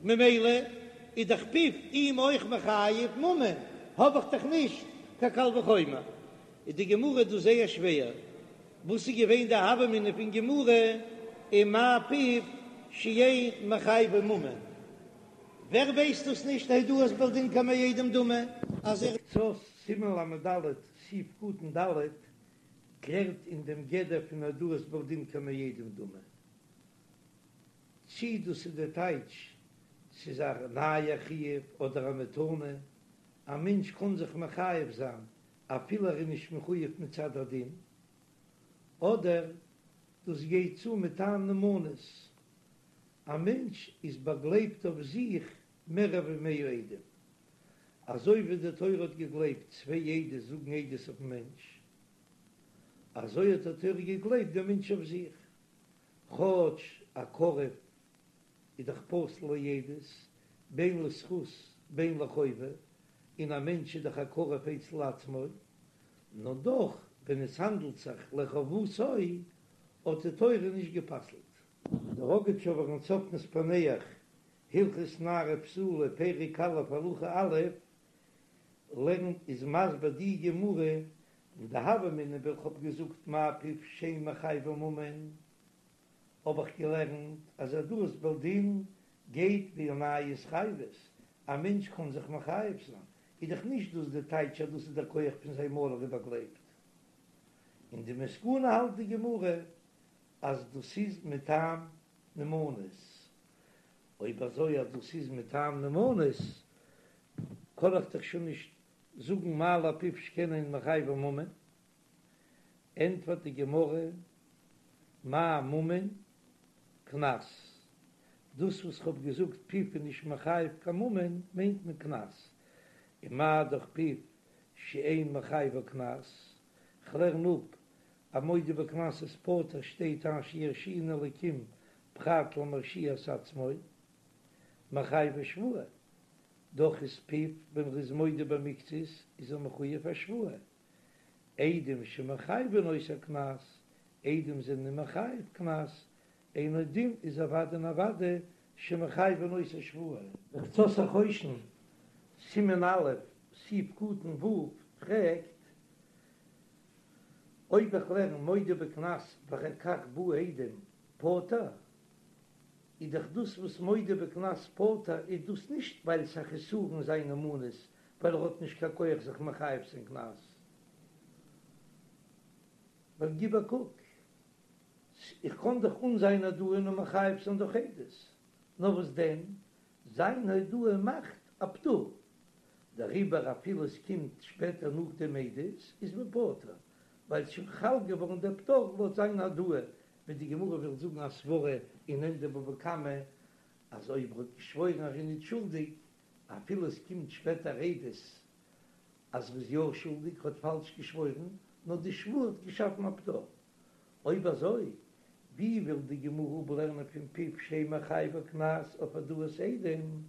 ממילא איז דאך פיו אים אויך מחייב ממון, האב איך דאך נישט קיין קל וחומר. איז די גמרא דא זייער שווער, וואס איז געווען די הוה אמינא פון גמרא ומאי פיו שאין מחייבו ממון? ווער ווייסט דאס נישט הודאת בעל דין כמאה עדים דמי אז ער. קצות סימן ל"ד סעיף קטן ד'. קלערט אין דעם גדר פון הודאת בעל דין כמעידים דמי, צי דאס איז די טייטש ס'איז א נייע חיוב אדער א מתנה, א מענטש קען זיך מחייב זיין אפילו ער איז נישט מחויב מצד הדין, אדער דאס גייט צו מטעם נאמנות, א מענטש איז באגלייבט אויף זיך מער ווי מאה עדים, אזוי ווי די תורה האט געגלייבט צוויי עדות זאגן עדות אויפן מענטש, אזוי האט די תורה געגלייבט דעם מענטש אויף זיך, כאטש א קרוב איז דאך פסול לעדות, בין לזכות בין לחובה, און א מענטש איז דאך א קרוב אצל עצמו, נאר דאך ווען עס האנדלט זיך לחובתו האט די תורה נישט גע'פסל'ט. דער ראגאטשאווער אין צפנת פענח, הלכות נערה בתולה, פרק א' הלכה א', לערנט איז מסביר די גמרא, אין די הוה אמינא ווען כ'האב געזאגט מה פיו שאין מחייבו ממון, האב איך געלערנט אז הודאת בעל דין גייט ווי א נייע התחייבות, א מענטש קען זיך מחייב זיין, איז דאך נישט דאס די טייטש אז דאס איז דער כח פון זיין מויל ער איז באגלייבט. אין די מסקנא האלט די גמרא אז דאס איז מטעם נאמנות, אויב אזוי אז דאס איז מטעם נאמנות קען איך דאך שוין נישט זאגן מה לפיו שכן אין מחייבו ממון, ענטפערט די גמרא מאי ממון קנס, דאס וואס כ'האב געזאגט פיו איז נישט מחייב קיין ממון מיינט מען קנס, און מה דאך פיו שאין מחייבו קנס, כ'לערן אפ א מודה בקנס איז פטור שטייט אשר ירשיען אלקים פרט למרשיע את עצמו מחייבו שבועה, דאך איז פיו ווען ר'איז מודה במקצת איז ער מחויב א שבועה, עדים שמחייבין אותו קנס, עדים זענען מחייב קנס, אינו דין איז אוודאי און אוודאי שמחייבין אותו שבועה. דער קצות החושן, סימן א', סעיף קטן ו', פרעגט, אויב איך לערן מודה בקנס ואחר כך באו עדים פטור, איז דאך דאס וואס מודה בקנס פטור איז דאס נישט ווייל ס'איז א חסרון זיין נאמנות, ווייל ער האט נישט קיין כח זיך מחייב זיין קנס. ווייל גיב א קוק, איך קען דאך אן זיין הודאה נאר מחייב זיין דורך עדות, נאר וואס דען, זיין הודאה מאכט א פטור, דעריבער אפילו עס קומט שפעטער נאך דעם עדות איז מען פטור, ווייל ס'שוין חל געווארן דער פטור לויט זיין הודאה, ווי די גמרא וויל זאגן א סברא אין ענדע בבא קמא אז אויב ער האט געשוואוירן ער איז נישט שולדיג אפילו עס קומט שפעטער עדות אז ר'איז יא שולדיג האט פאלש געשוואוירן, נאר די שבועה האט געשאפן א פטור. אויב אזוי, ווי וויל די גמרא אפלערנען פון פיו שאין מחייבו קנס אויף הודאת עדים?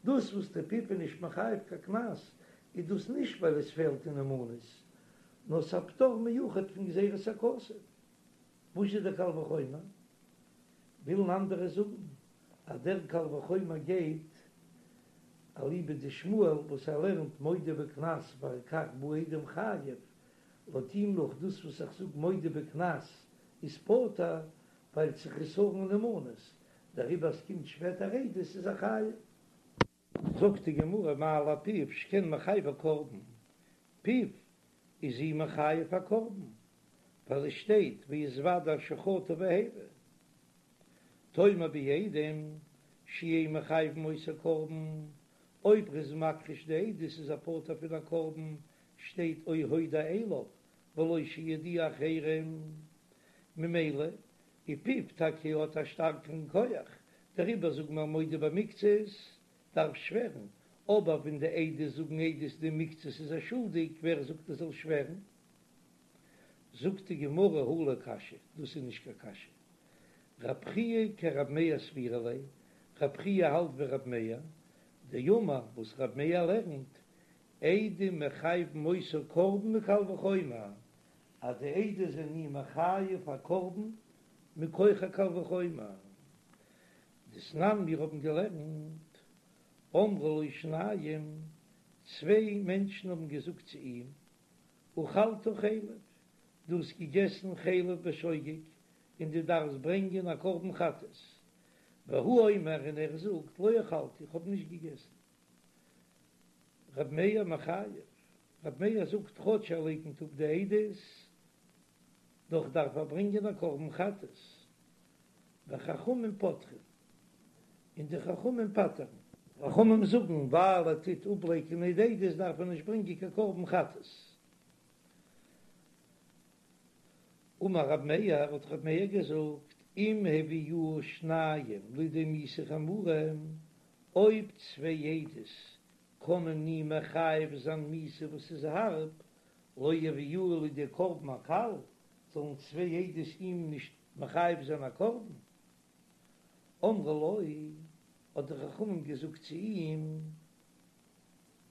דאס וואס די פיו איז נישט מחייב קיין קנס, איז דאס נישט ווייל עס פעלט אין נאמנות, נאר ס'א פטור מיוחד פון גזירת הכתוב. וואס איז דער קל וחומר? ווילן אנדערע זאגן אז דער קל וחומר גייט אליבא דשמואל וואס ער לערנט מודה בקנס ואחר כך באו עדים חייב, לויט אים נאך דאס וואס איך זאג מודה בקנס איז פטור ווייל ס'איז חסרון נאמנות, דעריבער אז ס'קומט שפעטער עדות איז ער חייב. זאגט די גמרא מה לפיו שכן מחייבו קרבן, פיו איז אים מחייב א קרבן, ווייל עס שטייט והתודה אשר חטא והביא. תאמר בעדים שאין מחייבין אותו קרבן, אויב ר'איז מכחיש די עדות איז ער פטור פון א קרבן, שטייט או הודע אליו ולא שיודיע אחרים, ממילא איז פיו טאקע האט א שטארקערן כח, דעריבער זאגן מיר מודה במקצת דארף שווערן, אבער ווען די עדות זאגן עדות די מקצת איז ער שולדיג, ווער זאגט ער זאל שווערן? זאגט די גמרא הא לא קשיא, דאס איז נישט קיין קשיא, רב חייא כרב מאיר סבירא ליה, רב חייא האלט ווי רב מאיר, דאמר וואס רב מאיר לערנט, עדים מחייבין אותו קרבן מקל וחומר, אז די עדות זענען אים מחייב א קרבן מכח א קל וחומר. דתנן מיר האבן געלערנט, אמרו לו שניים, צוויי מענטשן האבן געזאגט צו אים, אכלת חלב, דו האסט געגעסן חלב בשוגג, און דו דארפסט ברענגען א קרבן חטאת. והוא אומר, און ער זאגט, לא אכלתי, איך האב נישט געגעסן. ר' מאיר מחייב, ר' מאיר זאגט כאטש ער לייקנט אפ די עדות. דאך דארף ער ברענגען א קרבן חטאת, וחכמים פוטרין, און די חכמים פטר'ן. חכמים זאגן, ווייל ער טוט אפלייקענען די עדות דארף ער נישט ברענגען קיין קרבן חטאת. אמר רב מאיר, האט רב מאיר געזאגט, אם הביאוהו שניים לידי מיתה חמורה, אויב צוויי עדות קענען אים מחייב זיין מיתה וואס איז הארב, לא יביאוהו לידי קרבן הקל, זאלן צוויי עדות אים נישט מחייב זיין א קרבן. אמרו לו, האט די חכמים געזאגט צו אים,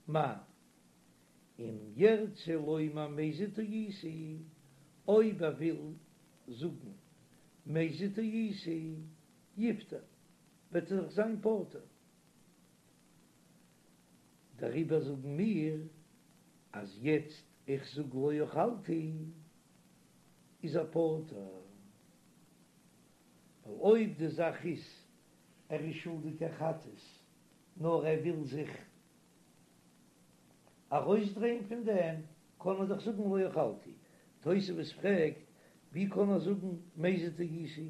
מה אם ירצה לומר מזיד טעיתי, אויב ער וויל זאגן מזיד טעיתי, יפטר, וועט ער זיך זיין פטור. דעריבער זאגן מיר אז יעצט איך זאג לא אכלתי איז ער פטור, ווייל אויב די זאך איז ער איז שולדיג א חטאת נאר ער וויל זיך ארויסדרייען פון דעם, קען ער דאך זאגן לא אכלתי. תוספות פרעגט, ווי קען ער זאגן מזיד טעיתי,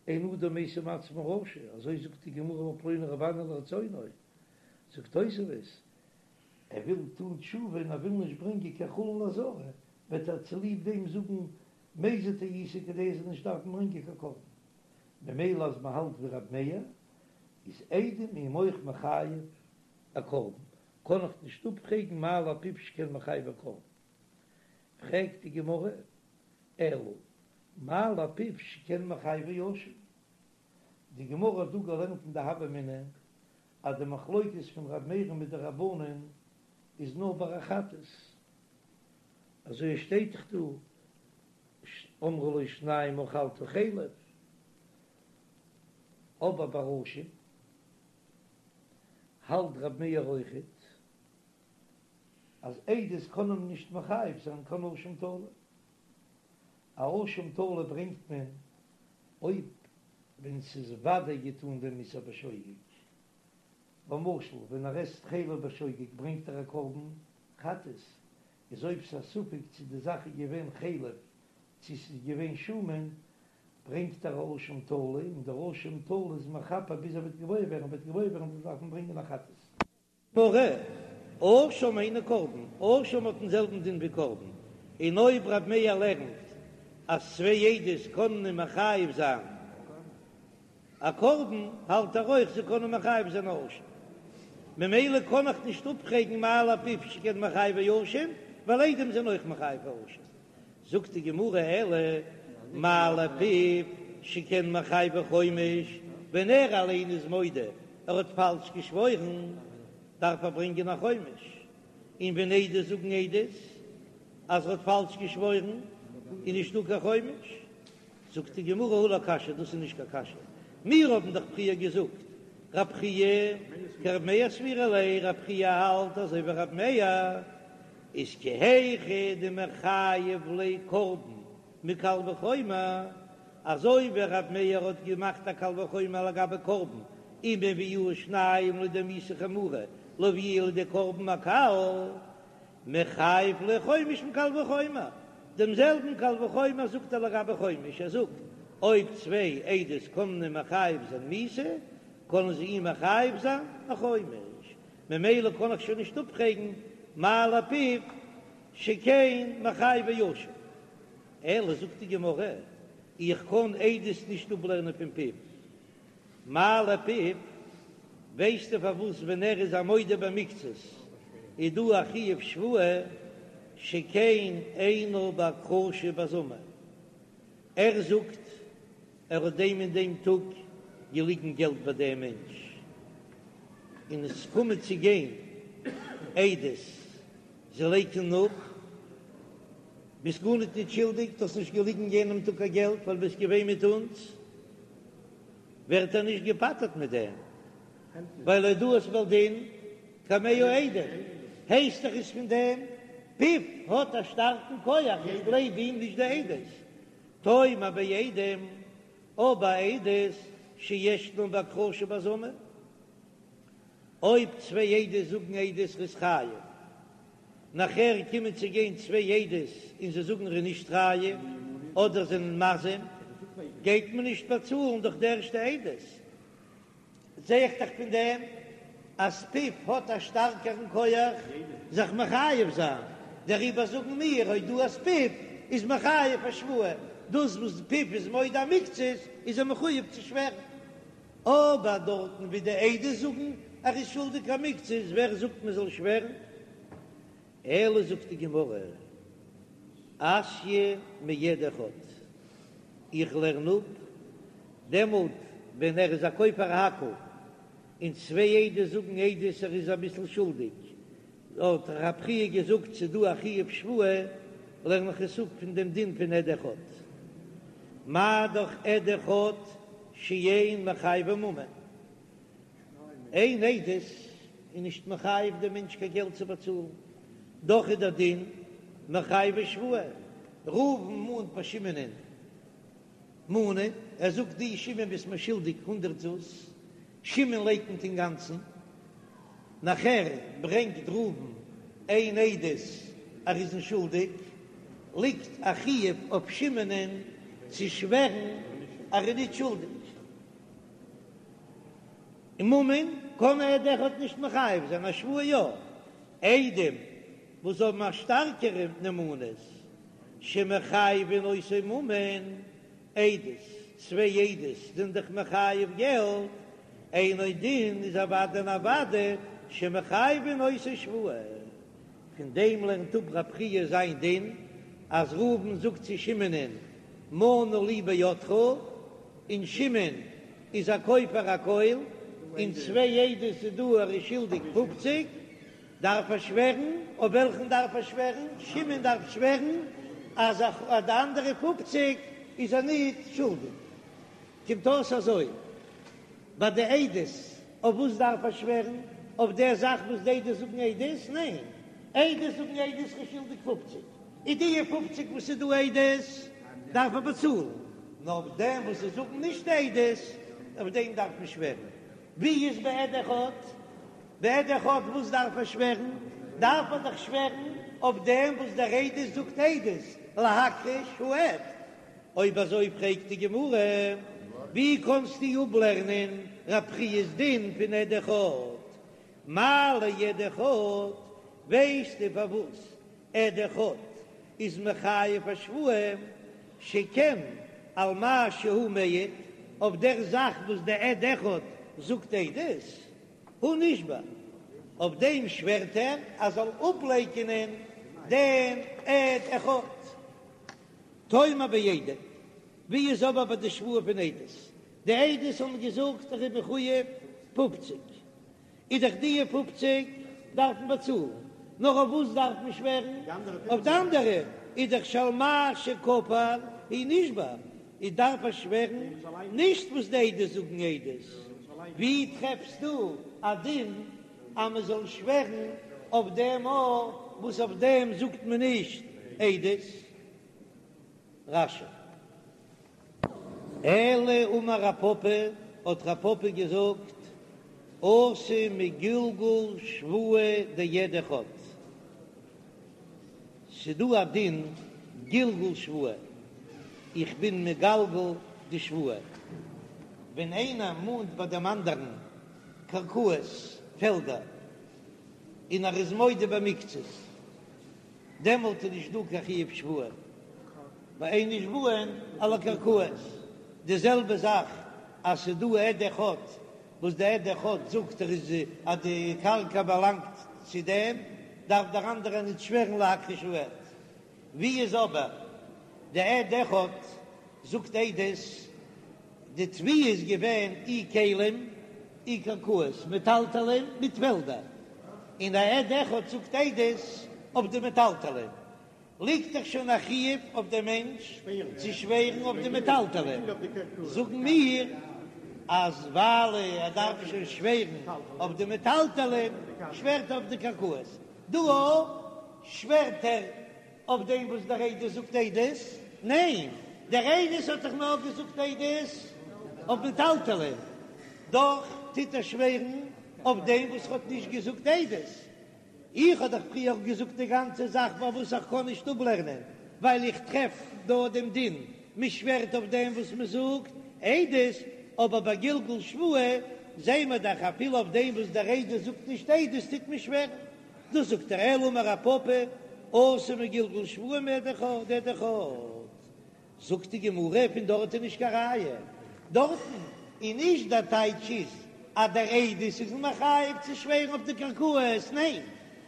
אין אדם משים עצמו רשע, אזוי זאגט די גמרא אמר פלוני רבי אנא לרצונו, זאגט תוספות, ער וויל טון תשובה און ער וויל נישט ברענגען קיין חולין לעזרה, וועט ער צוליב דעם זאגן מזיד טעיתי כדי ער זאל נישט דארפן ברענגען קיין קרבן. ממילא אז מען האלט ווי רבי מאיר, איז עדים אים אויך מחייב א קרבן, קען איך נישט אפפרעגן מה לפיו שכן מחייבו קרבן. פרעגט די גמרא, אלא מה לפיו שכן מחייבו אשם. די גמרא האט דא געלערנט אין די הוה אמינא אז די מחלוקת פון ר' מאיר'ן מיט די רבנן איז נאר ביי א חטאת, אזוי עס שטייט דאך דא אמרו לו שניים אכלת חלב, אבער ביי אשם האלט ר' מאיר אויכעט אז עדות קענען נישט מחייב זיין קיין אשם תלוי. א אשם תלוי ברענגט מען אויב ווען ס'איז ודאי געטאן דעם איסור בשוגג, למשל ווען ער עסט חלב בשוגג ברענגט ער א קרבן חטאת, איז אויב ס'איז א ספק צו די זאך איז געווען חלב צו ס'איז געווען שומן ברענגט ער א אשם תלוי און דער אשם תלוי איז מכפר ביז ער וועט געוואויר ווערן, וועט געוואויר ווערן וועט ער דארפן ברענגען א חטאת. גמרא, אשם היינו קרבן, אשם האט דעם זעלבן דין ווי קרבן, און אויב רב מאיר לערנט אז צוויי עדות קענען אים מחייב זיין א קרבן, האלט ער אויך זיי קענען מחייב זיין א אשם, ממילא קען איך נישט אפפרעגן מה לפיו שכן מחייבו אשם, ווייל עדים זענען אויך מחייב א אשם. זאגט די גמרא אלא מה לפיו שכן מחייבו חומש, ווען ער אליין איז מודה ער האט פאלש געשוואוירן דארף ער ברענגען א חומש, און ווען עדות זאגן עדות אז ער האט פאלש געשוואוירן איז נישטא קיין חומש, זאגט די גמרא הא לא קשיא דאס איז נישט קיין קשיא, מיר האבן דאך פריער געזאגט רב חייא כרב מאיר סבירא ליה, רב חייא האלט אזוי ווי רב מאיר, איז כי היכי דמיחייב ליה קרבן מקל וחומר, אזוי ווי רב מאיר האט געמאכט א קל וחומר לגבי קרבן, אם הביאוהו שניים לידי מיתה חמורה, לא יביאוהו לידי קרבן הקל, מיחייב ליה חומש מקל וחומר, דעם זעלבן קל וחומר זאגט ער לגבי חומש, ער זאגט, אויב צוויי עדות קענען אים מחייב זיין מיתה, קענען זיי אים מחייב זיין א חומש, ממילא קען איך שוין נישט אפפרעגן מה לפיו שכן מחייבו אשם. אלא זאגט די גמרא, איך קען עדות נישט אפלערנען פון פיו. מה לפיו, ווייסטו פארוואס ווען ער איז א מודה במקצת איז דא א חיוב שבועה שכן אינו בהכחשה ובהזמה, ער זאגט ער האט דעם און דעם טאג געליגן געלט ביי דעם מענטש, און עס קומען צו גיין עדות, זיי לייקענען אפ, ביסט גארניט ניט שולדיג, דו האסט נישט געליגן יענעם טאג קיין געלט ווייל ביסט געווען מיט אונז, ווערט ער נישט געפטר'ט מיט דעם, ווייל הודאת בעל דין כמאה עדים, הייסט דאך עס פון דעם, פיו האט א שטארקן כח, איך גלייב אים נישט די עדות, תאמר בעדים, אבער עדות שישנן בהכחשה ובהזמה, אויב צוויי עדות זאגן עדות ר'איז חייב, נאכער קומען צו גיין צוויי עדות און זיי זאגן ר'איז נישט חייב. אדער זענען מזים, גייט מען נישט באצאלן דורך די ערשטע עדות. זע איך דאך פון דעם אז פיו האט א שטארקערן כח זיך מחייב זיין, דעריבער זאגן מיר הודאת פיו איז מחייב א שבועה, דאס וואס פיו איז מודה מקצת איז ער מחויב צו שווערן. אבער דארטן ווי די עדות זאגן ער איז שולדיג א מקצת, ווער זאגט מען זאל שווערן? אלא זאגט די גמרא, אתיא מעד אחד, איך לערן אפ, דעמאלט ווען ער איז א כופר הכל, און צוויי עדות זאגן עדות ער איז אביסל שולדיג, האט רב חייא געזאגט ס'איז דא א חיוב שבועה, לערן איך עס אפ פון דעם דין פון עד אחד. מה דאך עד אחד שאין מחייבו ממון. איין עדות איז נישט מחייב דעם מענטש קיין געלט צו באצאלן, דאך איז דער דין מחייבו שבועה. ראובן מאנט ביי שמעונ'ען מנה, ער זאגט דו שמעון ביסט מיר שולדיג הונדרעט זוז, שמעון לייקנט אינגאנצן, נאכער ברענגט ראובן איין עדות ער איז אים שולדיג, ליגט א חיוב אויף שמעונ'ען צו שווערן ער איז נישט שולדיג. און ממון קען עד אחד נישט מחייב זיין, א שבועה יא. עדים וואס האבן א שטארקערע נאמנות שמחייבין אותו ממון, עדות, צוויי עדות זענען דאך מחייב געלט, אינו דין איז אוודאי און אוודאי שמחייבין אותו שבועה. פון דעם לערנט אפ רב חייא זיין דין אז ראובן זאגט צו שמעונ'ען מנה לי בידך, און שמעון איז א כופר הכל, און צוויי עדות איז דא ער איז שולדיג פופציג, דארף ער שווערן, אויף וועלכן דארף ער שווערן? שמעון דארף שווערן אז אויף די אנדערע פופציג איז ער ניט שולדיג. קומט אויס אזוי, ביי די עדות, אויף וואס דארף ער שווערן? אויף דער זאך וואס די עדות זאגן עדות? ניין, עדות זאגן עדות ער איז שולדיג פופציג, איז די פופציג וואס איז דא עדות דארף ער באצאלן, נאר אויף דעם וואס זיי זאגן נישט עדות, אויף דעם דארף מען שווערן. ווי איז בעד אחד? בעד אחד וואס דארף ער שווערן? דארף ער דאך שווערן אויף דעם וואס דער עדות זאגט עדות, להכחיש העד. אויב אזוי פרעגט די גמרא, ווי קענסטו אפלערנען רב חיא'ס דין פון עד אחד? מה לעד אחד, ווייסטו פארוואס עד אחד איז מחייב א שבועה, שכן על מה שהוא מעיד, אויף דער זאך וואס דער עד אחד זאגט עדות, הוא נשבע, אויף דעם שווערט ער אז זאל אפלייקענען דעם עד אחד. תאמר בעדים, ווי איז אבער ביי די שבועה פון עדות? די עדות האבן געזאגט ער איז מחויב פופציג, איז דאך די פופציג דארף מען באצאלן, נאר אויף וואס דארף מען שווערן? אויף די אנדערע, איז דאך שעל מה שכפר הוא נשבע, איז דארף ער שווערן נישט וואס די עדות זאגן עדות, ווי טרעפסטו א דין אז מען זאל שווערן אויף דעם אויך וואס אויף דעם זאגט מען נישט עדות? רש"י. אלא אמר רב פפא, האט רב פפא געזאגט, אתי מגלגול שבועה דעד אחד, ס'דא א דין גלגול שבועה, איך בין מגלגל די שבועה, ווען איינער מאנט ביי דעם אנדערן קרקעות, פעלדער, און ער איז מודה במקצת, דעמאלט איז נישט דא קיין חיוב שבועה, ווייל אין נשבעין על הקרקעות. די זעלבע זאך אז ס'איז דא עד אחד וואס די עד אחד זאגט ער איז אז די קרקע באלאנגט צו דעם, דארף דער אנדערער נישט שווערן להכחיש העד. ווי איז אבער די עד אחד זאגט עדות, די תביעה איז געווען אי כלים אי קרקעות, מטלטלין מיט פעלדער, און א עד אחד זאגט עדות אויף די מטלטלין, ליגט דאך שוין א חיוב אויף דעם מענטש צו שווערן אויף די מטלטלין, זאגן מיר אז ווייל ער דארף שוין שווערן אויף די מטלטלין, שווערט ער אויף די קרקעות, דא אויך שווערט ער אויף דעם וואס דער עדות זאגט עדות? ניין, דער עדות האט דאך נאר געזאגט עדות אויף מטלטלין, דאך טוט ער שווערן אויף דעם וואס האט נישט געזאגט עדות. איך האב דאך פריער געזאגט די גאנצע זאך פארוואס איך קען נישט אפלערנען. ווייל איך טרעף דא דעם דין, מען שווערט אויף דעם וואס מען זאגט עדות, אבער ביי גלגול שבועה זעהן מיר דאך אפילו אויף דעם וואס דער עדות זאגט נישט עדות טוט מען שווערן. דאס זאגט ער אלא אמר רב פפא אתי מגלגול שבועה מעד אחד עד אחד. זאגט די גמרא פון דארט איז נישט קיין ראיה, דארטן איז נישט דער טייטש איז אז דער עדות איז מחייב צו שווערן אויף די קרקעות, ניין,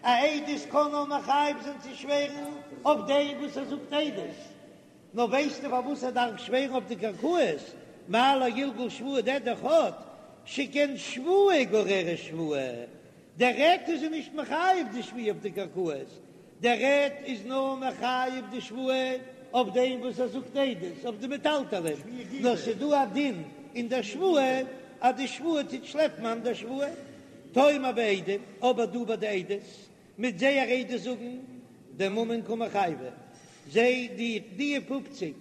א עדות קען נאר מחייב זיין צו שווערן אויף דעם וואס ער זאגט עדות, נאר ווייסטו פארוואס ער דארף שווערן אויף די קרקעות, מה לגלגול שבועה דעד אחד, שכן שבועה גוררת שבועה, דער עד איז נישט מחייב די שבועה אויף די קרקעות, דער עד איז נאר מחייב די שבועה אויף דעם וואס ער זאגט עדות אויף די מטלטלין, נאר ס'איז דא א דין אין דער שבועה אז די שבועה טוט שלעפן אן דער שבועה. תאמר בעדים, אבער דא ביי די עדות, מיט זייער עדות זאגן דממון קא מחייבי, זיי די די פופציג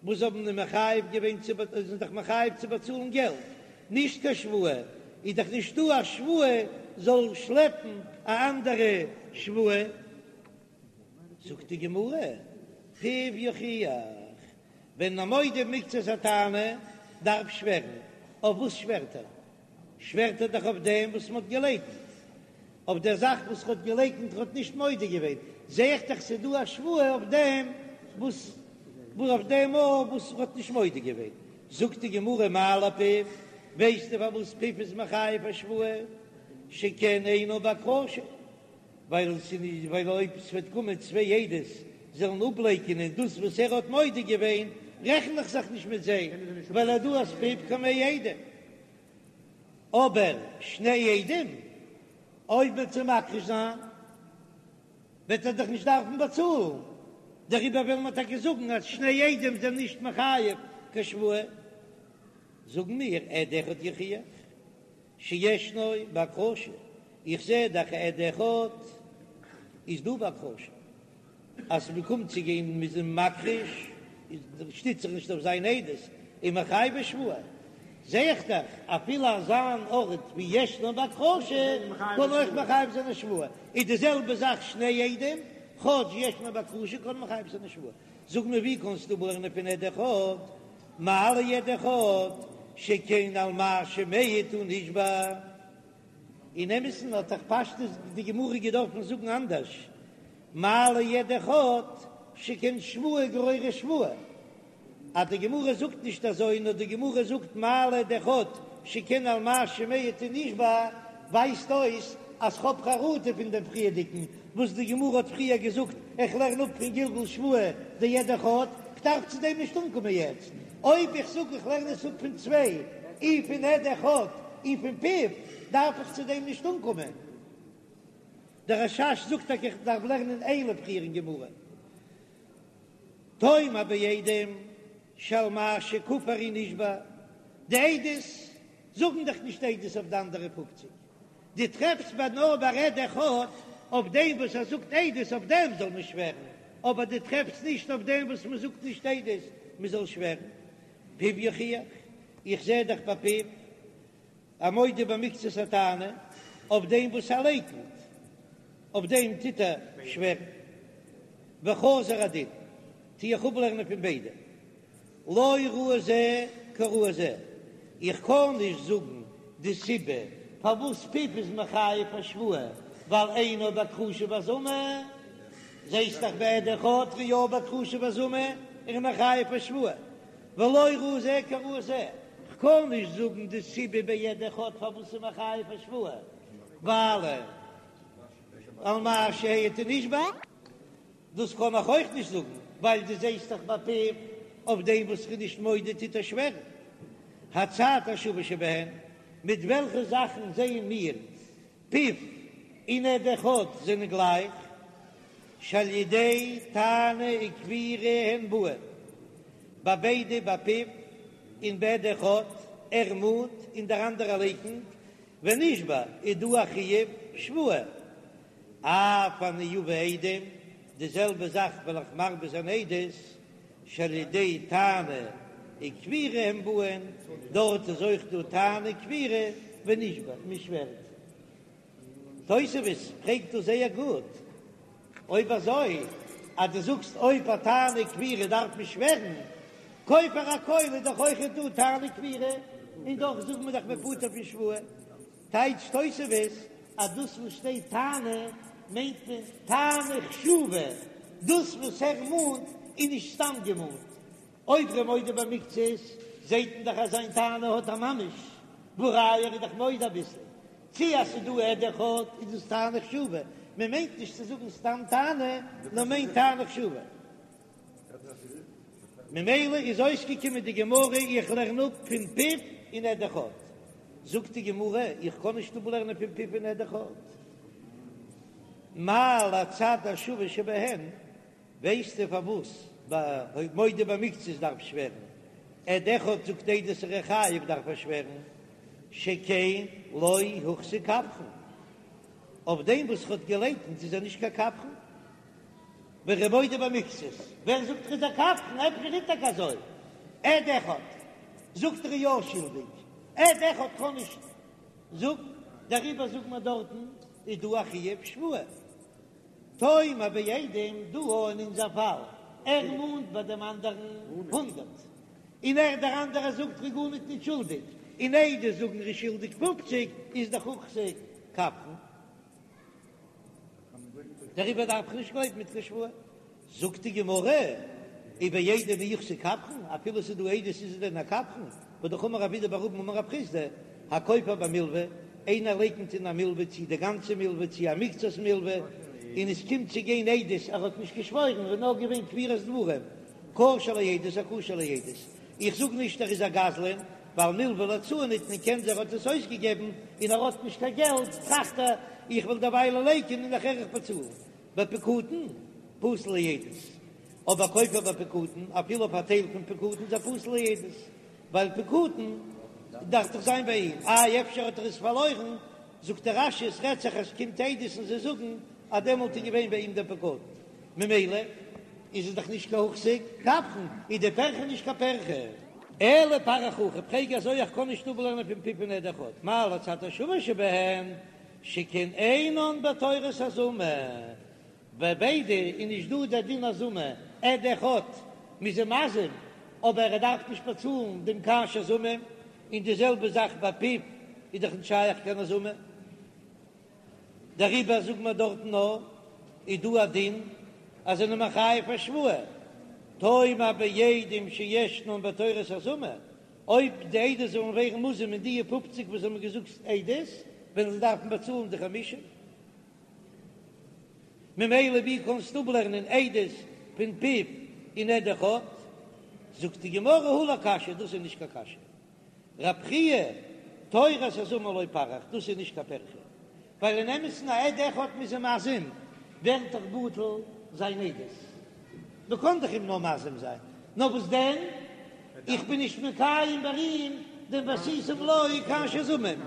וואס האבן אים מחייב געווען צו זענען דאך מחייב צו באצאלן געלט, נישט קיין שבועה, איז דאך נישטא א שבועה זאל שלעפן א אנדערע שבועה. זאגט די גמרא, פיו יוכיח, ווען א מודה מקצת הטענה דארף שווערן, אויף וואס שווערט ער? שווערט ער דאך אויף דעם וואס מ'האט געלייקנט, אויף דער זאך וואס ר'האט געלייקנט, ר'האט נישט מודה געווען, זע איך דאך ס'איז דא א שבועה אויף דעם וואס אויף דעם אויף וואס ר'האט נישט מודה געווען. זאגט די גמרא מה לפיו, ווייסטו פארוואס פיו איז מחייב א שבועה? שכן אינו בהכחשה, ווייל ס'איז נישט ווייל אויב ס'וועט קומען צוויי עדות זאלן אפלייקענען דאס וואס ער האט מודה געווען, רעכן איך זיך נישט מיט זיי, ווייל דא אז פיו כמאה עדים. אבער שני עדים, אויב וועט זיי מכחיש זיין, וועט ער דאך נישט דארפן באצאלן, דעריבער וועלן מיר טאקע זאגן אז שני עדים זענען נישט מחייב קיין שבועה. זאגן מיר עד אחד יוכיח שישנו בהכחשה, איך זע דאך עד אחד איז דא בהכחשה, אז מ'קומט צו גיין מ'איז אים מכחיש, איז שטיצט זיך נישט אויף זיין עדות, און מחייבו שבועה, זע איך דאך אפילו אזא אן ארט ווי ישנו בהכחשה קען אויך מחייב זיין א שבועה, איז די זעלבע זאך שני עדים, כאטש ישנו בהכחשה קען מחייב זיין א שבועה, זאג מיר ווי קענסטו אפלערנען פון עד אחד, מה לעד אחד שכן על מה שמעיד הוא נשבע. אין אמת'ן האט דאך פשטות די גמרא געדארפן זאגן אנדערש, מה לעד אחד שכן שבועה גוררת שבועה, אז די גמרא זאגט נישט אזוי נאר די גמרא זאגט מה לעד אחד שכן על מה שמעיד הוא נשבע, ווייזט אויס אז כ'האב חרטה פון דעם פריערדיגן וואס די גמרא האט פריער געזאגט, איך לערן אפ פון גלגול שבועה דעד אחד, כ'דארף צו דעם נישט אנקומען יעצט, אויב איך זאג איך לערן עס אפ פון צוויי, אי פון עד אחד אי פון פיו, דארף איך צו דעם נישט אנקומען. דער רש"ש זאגט טאקע איך דארף לערנען אלו פריער אין גמרא. תאמר בעדים שעל מה שכפר הוא נשבע, די עדות זאגן דאך נישט עדות אויף די אנדערע פופציג, דו טרעפסט ביי נאר ביי עד אחד אויף דעם וואס ער זאגט עדות אויף דעם זאל מען שווערן, אבער דו טרעפסט נישט אויף דעם וואס מען זאגט נישט עדות מען זאל שווערן. פיו יוכיח, איך זע דאך ביי פיו א מודה במקצת הטענה אויף דעם וואס ער לייקנט, אויף דעם טוט ער שווערן. וחזר הדין, טו איך אפלערנען פון ביידע. לא ראי זה כראי זה, איך קען נישט זאגן די סיבה פארוואס פיו איז מחייב א שבועה, ווייל אינו בהכחשה והזמה, זעסט דאך ביי עד אחד איז יא בהכחשה והזמה און מחייב א שבועה, ולא ראי זה כראי זה, כ'קען נישט זאגן די סיבה ביי עד אחד פארוואס ס'איז מחייב א שבועה, ווייל על מה שהעיד הוא נשבע. דאס קען איך אויך נישט זאגן, ווייל דו זעסט דאך ביי פיו אויף דעם וואס כ'בין נישט מודה טוט ער שווערן. הצד השווה שבהן, מיט וועלכע זאכן זעען מיר פיו און עד אחד זענען גלייך? שעל ידי טענה וכפירה הן באין, ביי ביידע ביי פיו און ביי עד אחד, ער מאנט און דער אנדערער לייקנט, ונשבע איז דא א חיוב שבועה. אף אני אביא עדים, די זעלבע זאך וועל איך מרבה זיין עדות, שעל ידי טענה וכפירה הם באין, דארט איז אויך דא טענה וכפירה ונשבע, מען שווערט. תוספות פרעגט דא זייער גוט, אויב אזוי. אז דו זאגסט אויב א טענה כפירה דארף מען שווערן, כופר הכל איז דאך אויכעט דא טענה כפירה, און דאך זאגן מיר דאך מ'איז פטור פון שבועה. טייטשט תוספות אז דאס וואס שטייט טענה מיינט מען טענה חשובה, דאס וואס ער מאנט איז נישט סתם געמאנט. אויב ר'איז מודה במקצת זעהט מען דאך אז זיין טענה האט א ממש, והא ראיה ער איז דאך מודה אביסל. צי אז ס'איז דא עד אחד איז דאס טענה חשובה, מען מיינט נישט צו זאגן סתם טענה, נאר מיינט טענה חשובה. ממילא איז אויסגעקומען די גמרא איך לערן אפ פון פיו און עד אחד. זאגט די גמרא איך קען נישט אפלערנען פון פיו און עד אחד. מה להצד השווה שבהן, ווייסטו פארוואס ביי מודה במקצת דארף שווערן, עד אחד זאגט עדות ער איז חייב דארף ער שווערן, שכן לא הוחזק כפרן, אויף דעם וואס ער האט געלייקנט איז ער נישט קיין כפרן. ווען ר'איז מודה במקצת, ווער זאגט ער איז א כפרן? אפשר איז טאקע אזוי. עד אחד זאגט ער איז יא שולדיג, עד אחד קען נישט זאגן, דעריבער זאגט מען דארטן איז דא א חיוב שבועה. תאמר בעדים דא אין אונזער פאל, ער מאנט ביי דעם אנדערן הונדרעט, און ער דער אנדערער זאגט ר'איז גארניט נישט שולדיג, און עדות זאגן ר'איז שולדיג פופציג, איז דאך הוחזק כפרן. דעריבער דארף איך נישט גלויבן מיט קיין שבועה. זאגט די גמרא, ובעדים מי הוחזק כפרן, אפילו ס'איז דא עדות איז ער דען א כפרן? והא דאך אמר רב אידי בר אבין אמר רב חסדא, הכופר במלוה, איינער לייקנט אין א מלוה צי די גאנצע מלוה צי א מקצת מלוה, און עס קומט צו גיין עדות ער האט נישט געשוואוירן, ער איז נאר געווען כפירת דברים, כשר לעדות איז כשר לעדות. איך זאג נישט ער איז א גזלן, ווייל מלוה להוצאה ניתנה קען זיין ער האט עס אויסגעגעבן און ער האט נישט קיין געלט, טראכט ער איך וועל דערוויילע לייקענען און נאכער איך באצאלן. בפקדון, פסול לעדות. אבער כופר בפקדון, אפילו אויף א טייל פון פקדון איז ער פסול לעדות, ווייל פקדון דארף דאך זיין ביי אים, איי אפשר האט ער עס פארלוירן, זאגט דער רש"י עס רעדט זיך אז ס'קומט עדות און זיי זאגן אז דעמאלט איז געווען ביי אים דער פקדון, ממילא איז עס דאך נישט קיין הוחזק כפרן, איז די פירכא נישט קיין פירכא. אלא פריך הכי, פרעג אזוי איך קען נישט אפלערנען פון פיו און עד אחד, מה להצד השווה שבהן שכן אינן בתורת הזמה, ביי ביידע איז נישט דא דער דין הזמה, עד אחד מ'איז אים מזים אבער ער דארף נישט באצאלן דעם כאשר זמם, און די זעלבע זאך ביי פיו איז דאך נישט שייך קיין הזמה. דעריבער זאגט מען דארטן נאר איז דא א דין אז זענען מחייב א שבועה, תאמר בעדים שישנן בתורת הזמה, אויב די עדות זאלן ווערן מוזם אין די פופציג וואס האבן געזאגט עדות, וועלן זיי דארפן באצאלן די חמישים. ממילא ווי קענסטו אפלערנען עדות פון פיו און עד אחד? זאגט די גמרא הא לא קשיא, דאס איז נישט קיין קשיא. רב חייא, תורת הזמה לא פריך, דאס איז נישט קיין פירכא, ווייל אין אמת'ן א עד אחד מ'איז אים מזים, ווערט דאך בטל זיין עדות, מ'קען דאך אים נאר מזים זיין, נאר וואס דען, איך בין נישט מקיים ביי אים דעם ועשיתם לו כאשר זמם,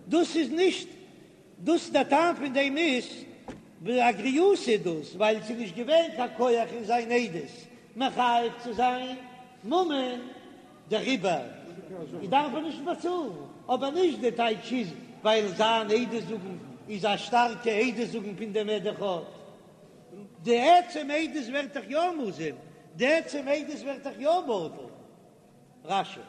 דאס איז נישט דאס דער טעם פון דעם איז א גריעותא איז דאס ווייל ס'איז נישט געווען קיין כח אין זיין עדות מחייב צו זיין ממון דעריבער דארף ער נישט באצאלן, אבער נישט די טייטש איז ווייל זיין עדות זאגן איז א שטארקע עדות זאגן פון דעם עד אחד, די עצם עדות ווערט דאך יא מוזם, די עצם עדות ווערט דאך יא בטל. רש"י.